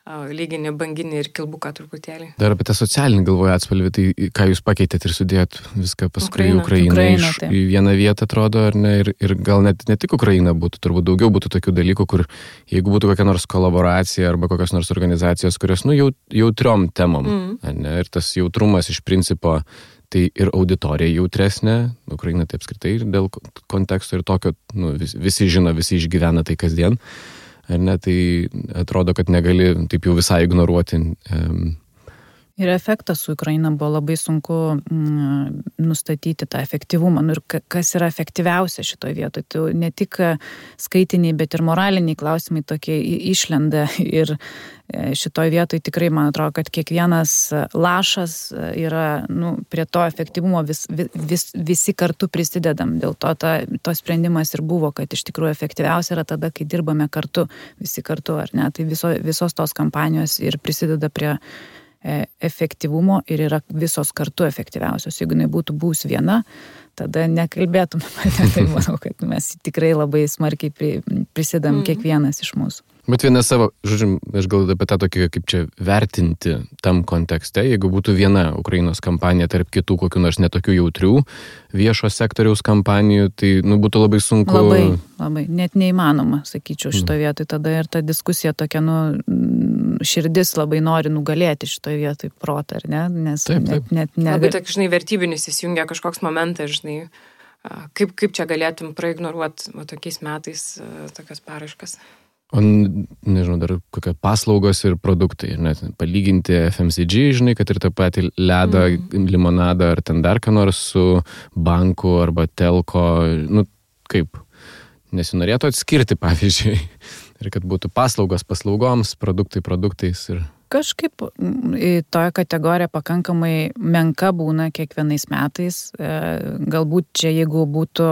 lyginį, banginį ir kilbuką truputėlį. Dar apie tą socialinį galvoju atspalvį, tai ką jūs pakeitėt ir sudėjot viską paskui Ukrainą į vieną vietą, atrodo, ar ne, ir gal net ne tik Ukraina būtų, turbūt daugiau būtų tokių dalykų, kur jeigu būtų kokia nors kolaboracija arba kokios nors organizacijos, kurios, jautriom temom, ne, ir tas jautrumas iš principo, tai ir auditorija jautresnė, Ukraina tai apskritai dėl konteksto ir tokio, visi žino, visi išgyvena tai kasdien. Ar ne, tai atrodo, kad negali taip jau visai ignoruoti. Ir efektas su Ukraina buvo labai sunku nustatyti tą efektyvumą. Ir kas yra efektyviausia šitoje vietoje? Tai ne tik skaitiniai, bet ir moraliniai klausimai tokie išlenda. Ir šitoje vietoje tikrai, man atrodo, kad kiekvienas lašas yra prie to efektyvumo visi kartu prisidedam. Dėl to sprendimas ir buvo, kad iš tikrųjų efektyviausia yra tada, kai dirbame kartu, visi kartu, ar ne? Tai visos tos kampanijos ir prisideda prie efektyvumo ir yra visos kartu efektyviausios. Jeigu jinai būtų buvus viena, tada nekalbėtume. Tai manau, kad mes tikrai labai smarkiai prisidam kiekvienas iš mūsų. Bet viena savo, žodžiu, aš galvoju apie tą tokį, kaip čia vertinti tam kontekste, jeigu būtų viena Ukrainos kampanija tarp kitų kokių nors netokių jautrių viešo sektoriaus kampanijų, tai būtų labai sunku. Labai, net neįmanoma, sakyčiau, šitoje vietoje. Tada ir ta diskusija tokia, širdis labai nori nugalėti šitoje vietoje protą, ar ne? Nes taip. Net labai tokia, žinai, vertybinis įsijungia kažkoks momentas, žinai, kaip čia galėtum praignoruoti tokiais metais tokias paraiškas. O, nežinau, dar kokie paslaugos ir produktai, net palyginti FMCG, žinai, kad ir tą patį ledą, limonadą ar ten dar ką nors su banku arba telko, kaip, nesinorėtų atskirti, pavyzdžiui, ir kad būtų paslaugos paslaugoms, produktai produktais ir... Kažkaip toje kategorija pakankamai menka būna kiekvienais metais. Galbūt čia, jeigu būtų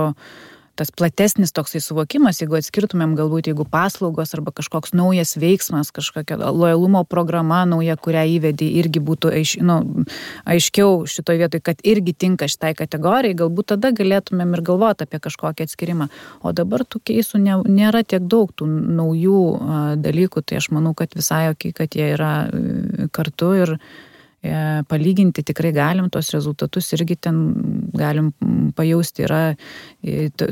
tas platesnis toksai suvokimas, jeigu atskirtumėm galbūt, jeigu paslaugos arba kažkoks naujas veiksmas, kažkokia lojalumo programa nauja, kurią įvedė, irgi būtų aiškiau šitoje vietoje, kad irgi tinka šitai kategorijai, galbūt tada galėtumėm ir galvoti apie kažkokį atskirimą. O dabar tų keisų nėra tiek daug tų naujų dalykų, tai aš manau, kad visai jokiai, kad jie yra kartu ir palyginti tikrai galim, tos rezultatus irgi ten galim pajausti, yra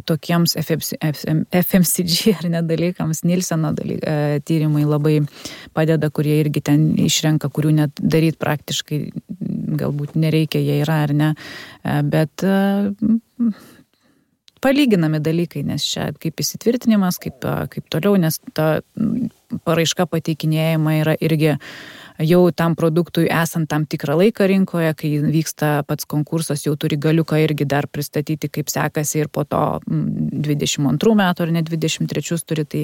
tokiems FMCG ar ne dalykams, Nilseno tyrimai labai padeda, kurie irgi ten išrenka, kurių net daryti praktiškai galbūt nereikia, jie yra ar ne, bet palyginami dalykai, nes čia kaip įsitvirtinimas, kaip toliau, nes ta paraiška pateikinėjama yra irgi jau tam produktui esant tam tikrą laiką rinkoje, kai vyksta pats konkursas, jau turi galiuką irgi dar pristatyti, kaip sekasi ir po to 22 metų ar ne 23 turi, tai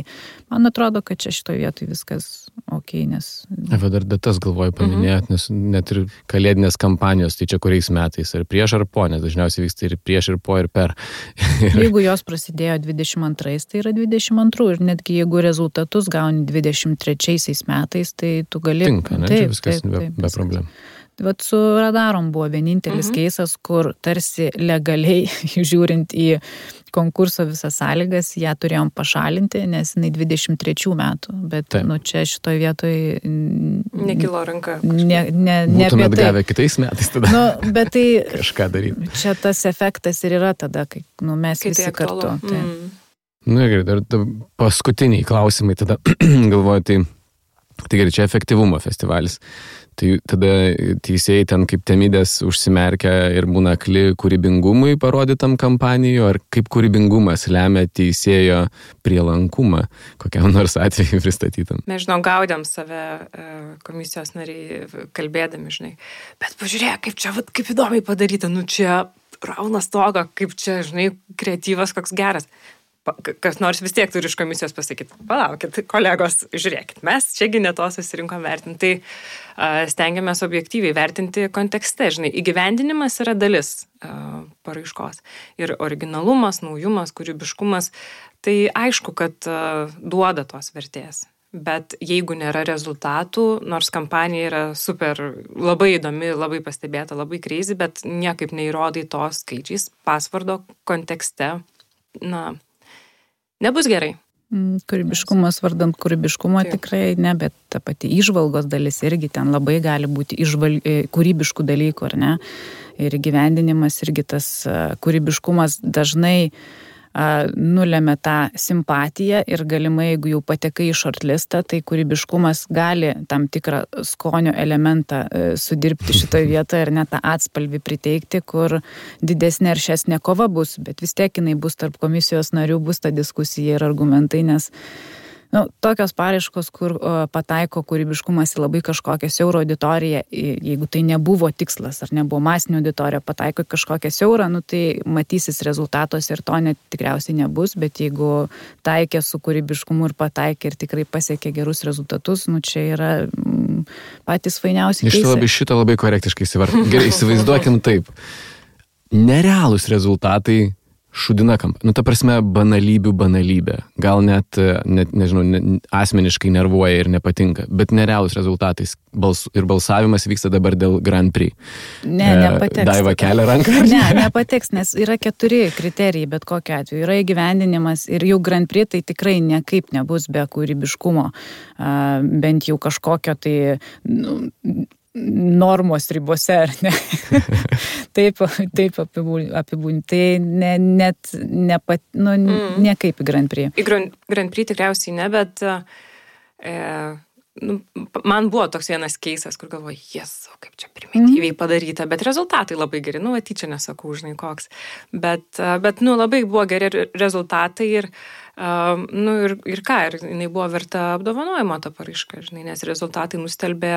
man atrodo, kad čia šitoje vietoje viskas ok, nes... Dar datas galvoju paminėt, nes net ir kalėdinės kampanijos, tai čia kuriais metais, ar prieš ar po, nes dažniausiai vyksta ir prieš ir po ir per. Jeigu jos prasidėjo 22, tai yra 22 ir netgi jeigu rezultatus gauni 23 metais, tai tu gali... Tinka, ne? Čia viskas be problemų. Vat su radarom buvo vienintelis keisas, kur tarsi legaliai žiūrint į konkurso visas sąlygas, ją turėjom pašalinti, nes jinai 23 metų, bet čia šitoje vietoje... Nekilo ranka. Būtumėt gavę kitais metais tada. Bet tai... Kažką daryti. Čia tas efektas ir yra tada, kai mes visi kartu. Gerai, dar paskutiniai klausimai tada galvoju, tai gerai, čia efektyvumo festivalis. Tai tada teisėjai ten kaip temidės užsimerkia ir būna akli kūrybingumui parodytam kampanijoje, ar kaip kūrybingumas lemia teisėjo prielankumą kokiam nors atveju pristatytam. Mes, gaudėm save komisijos nariai kalbėdami, bet pažiūrėk, kaip įdomiai padaryta, čia rauna stogą, kaip čia, kreatyvas koks geras. Kas nors vis tiek turi iš komisijos pasakyti, palaukit, kolegos, žiūrėkit, mes čiagi ne to susirinkom vertinti, tai stengiamės objektyviai vertinti kontekste, įgyvendinimas yra dalis paraiškos ir originalumas, naujumas, kūrybiškumas, tai aišku, kad duoda tos vertės, bet jeigu nėra rezultatų, nors kampanija yra super, labai įdomi, labai pastebėta, labai crazy, bet niekaip neįrodai to skaičiais, pasvardo kontekste, nebus gerai. Kūrybiškumas vardant kūrybiškumo tikrai ne, bet ta pati įžvalgos dalis irgi ten labai gali būti kūrybiškų dalykų, ar ne? Ir gyvendinimas irgi tas kūrybiškumas dažnai nulėmė tą simpatiją ir galimai, jeigu jau patekai į shortlistą, tai kūrybiškumas gali tam tikrą skonio elementą sudirbti šitoje vietoje ir net tą atspalvį priteikti, kur didesnė ir šesnė kova bus, bet vis tiek jinai bus tarp komisijos narių, bus ta diskusija ir argumentai, nes tokios paraiškos, kur pataiko kūrybiškumas į labai kažkokią siaurą auditoriją, jeigu tai nebuvo tikslas ar nebuvo masinė auditorija, pataiko į kažkokią siaurą, tai matysis rezultatos ir to net tikriausiai nebus, bet jeigu taikė su kūrybiškumu ir pataikė ir tikrai pasiekė gerus rezultatus, čia yra patys fainiausi keisai. Šitą labai korektiškai įsivardinti. Gerai, įsivaizduokim taip. Nerealūs rezultatai šudina kampaniją. Ta prasme, banalybių banalybė. Gal net nežinau, asmeniškai nervuoja ir nepatinka, bet nerealūs rezultatai. Ir balsavimas vyksta dabar dėl Grand Prix. Nepateks. Daiva kelia ranką. Nepateks, nes yra 4 kriterijai, bet kokiu atveju. Yra įgyvendinimas ir jau Grand Prix tai tikrai niekaip nebus be kūrybiškumo. Bent jau kažkokio tai... normos ribose, ar ne? Taip apibūdinti. Tai nekaip į Grand Prix. Į Grand Prix tikriausiai ne, bet man buvo toks vienas keisas, kur galvoju, kaip čia primityviai padaryta, bet rezultatai labai geri, tyčia nesakau, koks. Bet labai buvo geri rezultatai ir jinai buvo verta apdovanojimo ta paraiška, nes rezultatai nustelbė,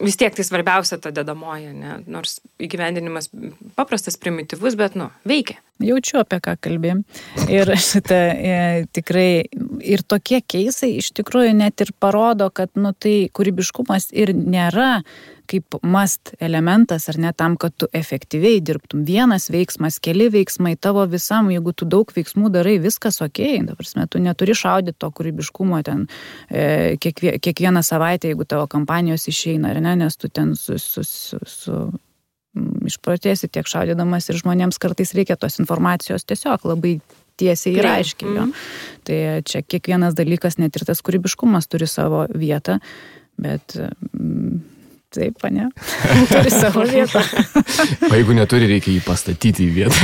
vis tiek tai svarbiausia ta dedamoji, nors įgyvendinimas paprastas, primityvus, bet veikia. Jaučiu, apie ką kalbėjom. Ir šitą tikrai ir tokie keisai iš tikrųjų net ir parodo, kad tai kūrybiškumas ir nėra kaip must elementas, ar ne, tam, kad tu efektyviai dirbtum. Vienas veiksmas, keli veiksmai tavo visam, jeigu tu daug veiksmų darai, viskas okei. Ta prasme, tu neturi šaudyti to kūrybiškumo ten kiekvieną savaitę, jeigu tavo kampanijos išeina, ar ne, nes tu ten išprotėsi tiek šaudydamas ir žmonėms kartais reikia tos informacijos tiesiog labai tiesiai ir aiškiai. Jo. Tai čia kiekvienas dalykas, net ir tas kūrybiškumas turi savo vietą, bet taip, ne, turi savo vietą. O jeigu neturi, reikia jį pastatyti į vietą.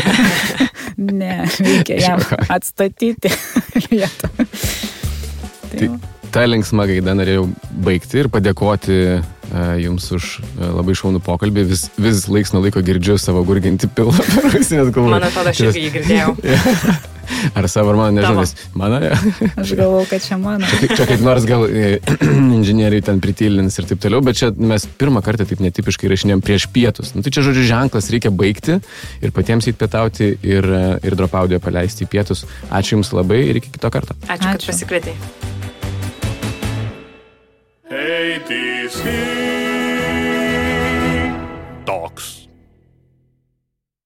Ne, reikia jam atstatyti vietą. Tai tą linksmą gaidą norėjau baigti ir padėkoti jums už labai šaunų pokalbį. Vis laiks nuo laiko girdžiu savo gurginti pilą per ausinės galvoju. Man atrodo, aš irgi jį girdėjau. Ar savo, ar mano, nežinau, nes mano, ja. Aš galvau, kad čia mano. Čia kaip nors gal inžinieriai ten pritylins ir taip toliau, bet čia mes pirmą kartą taip netipiškai rašinėjom prieš pietus. Tai čia, žodžiu, ženklas, reikia baigti ir patiems įpietauti ir Drop Audio paleisti į pietus. Ačiū Jums labai ir iki kito karto. Ačiū. Kad pasikvietei. ATC Talks.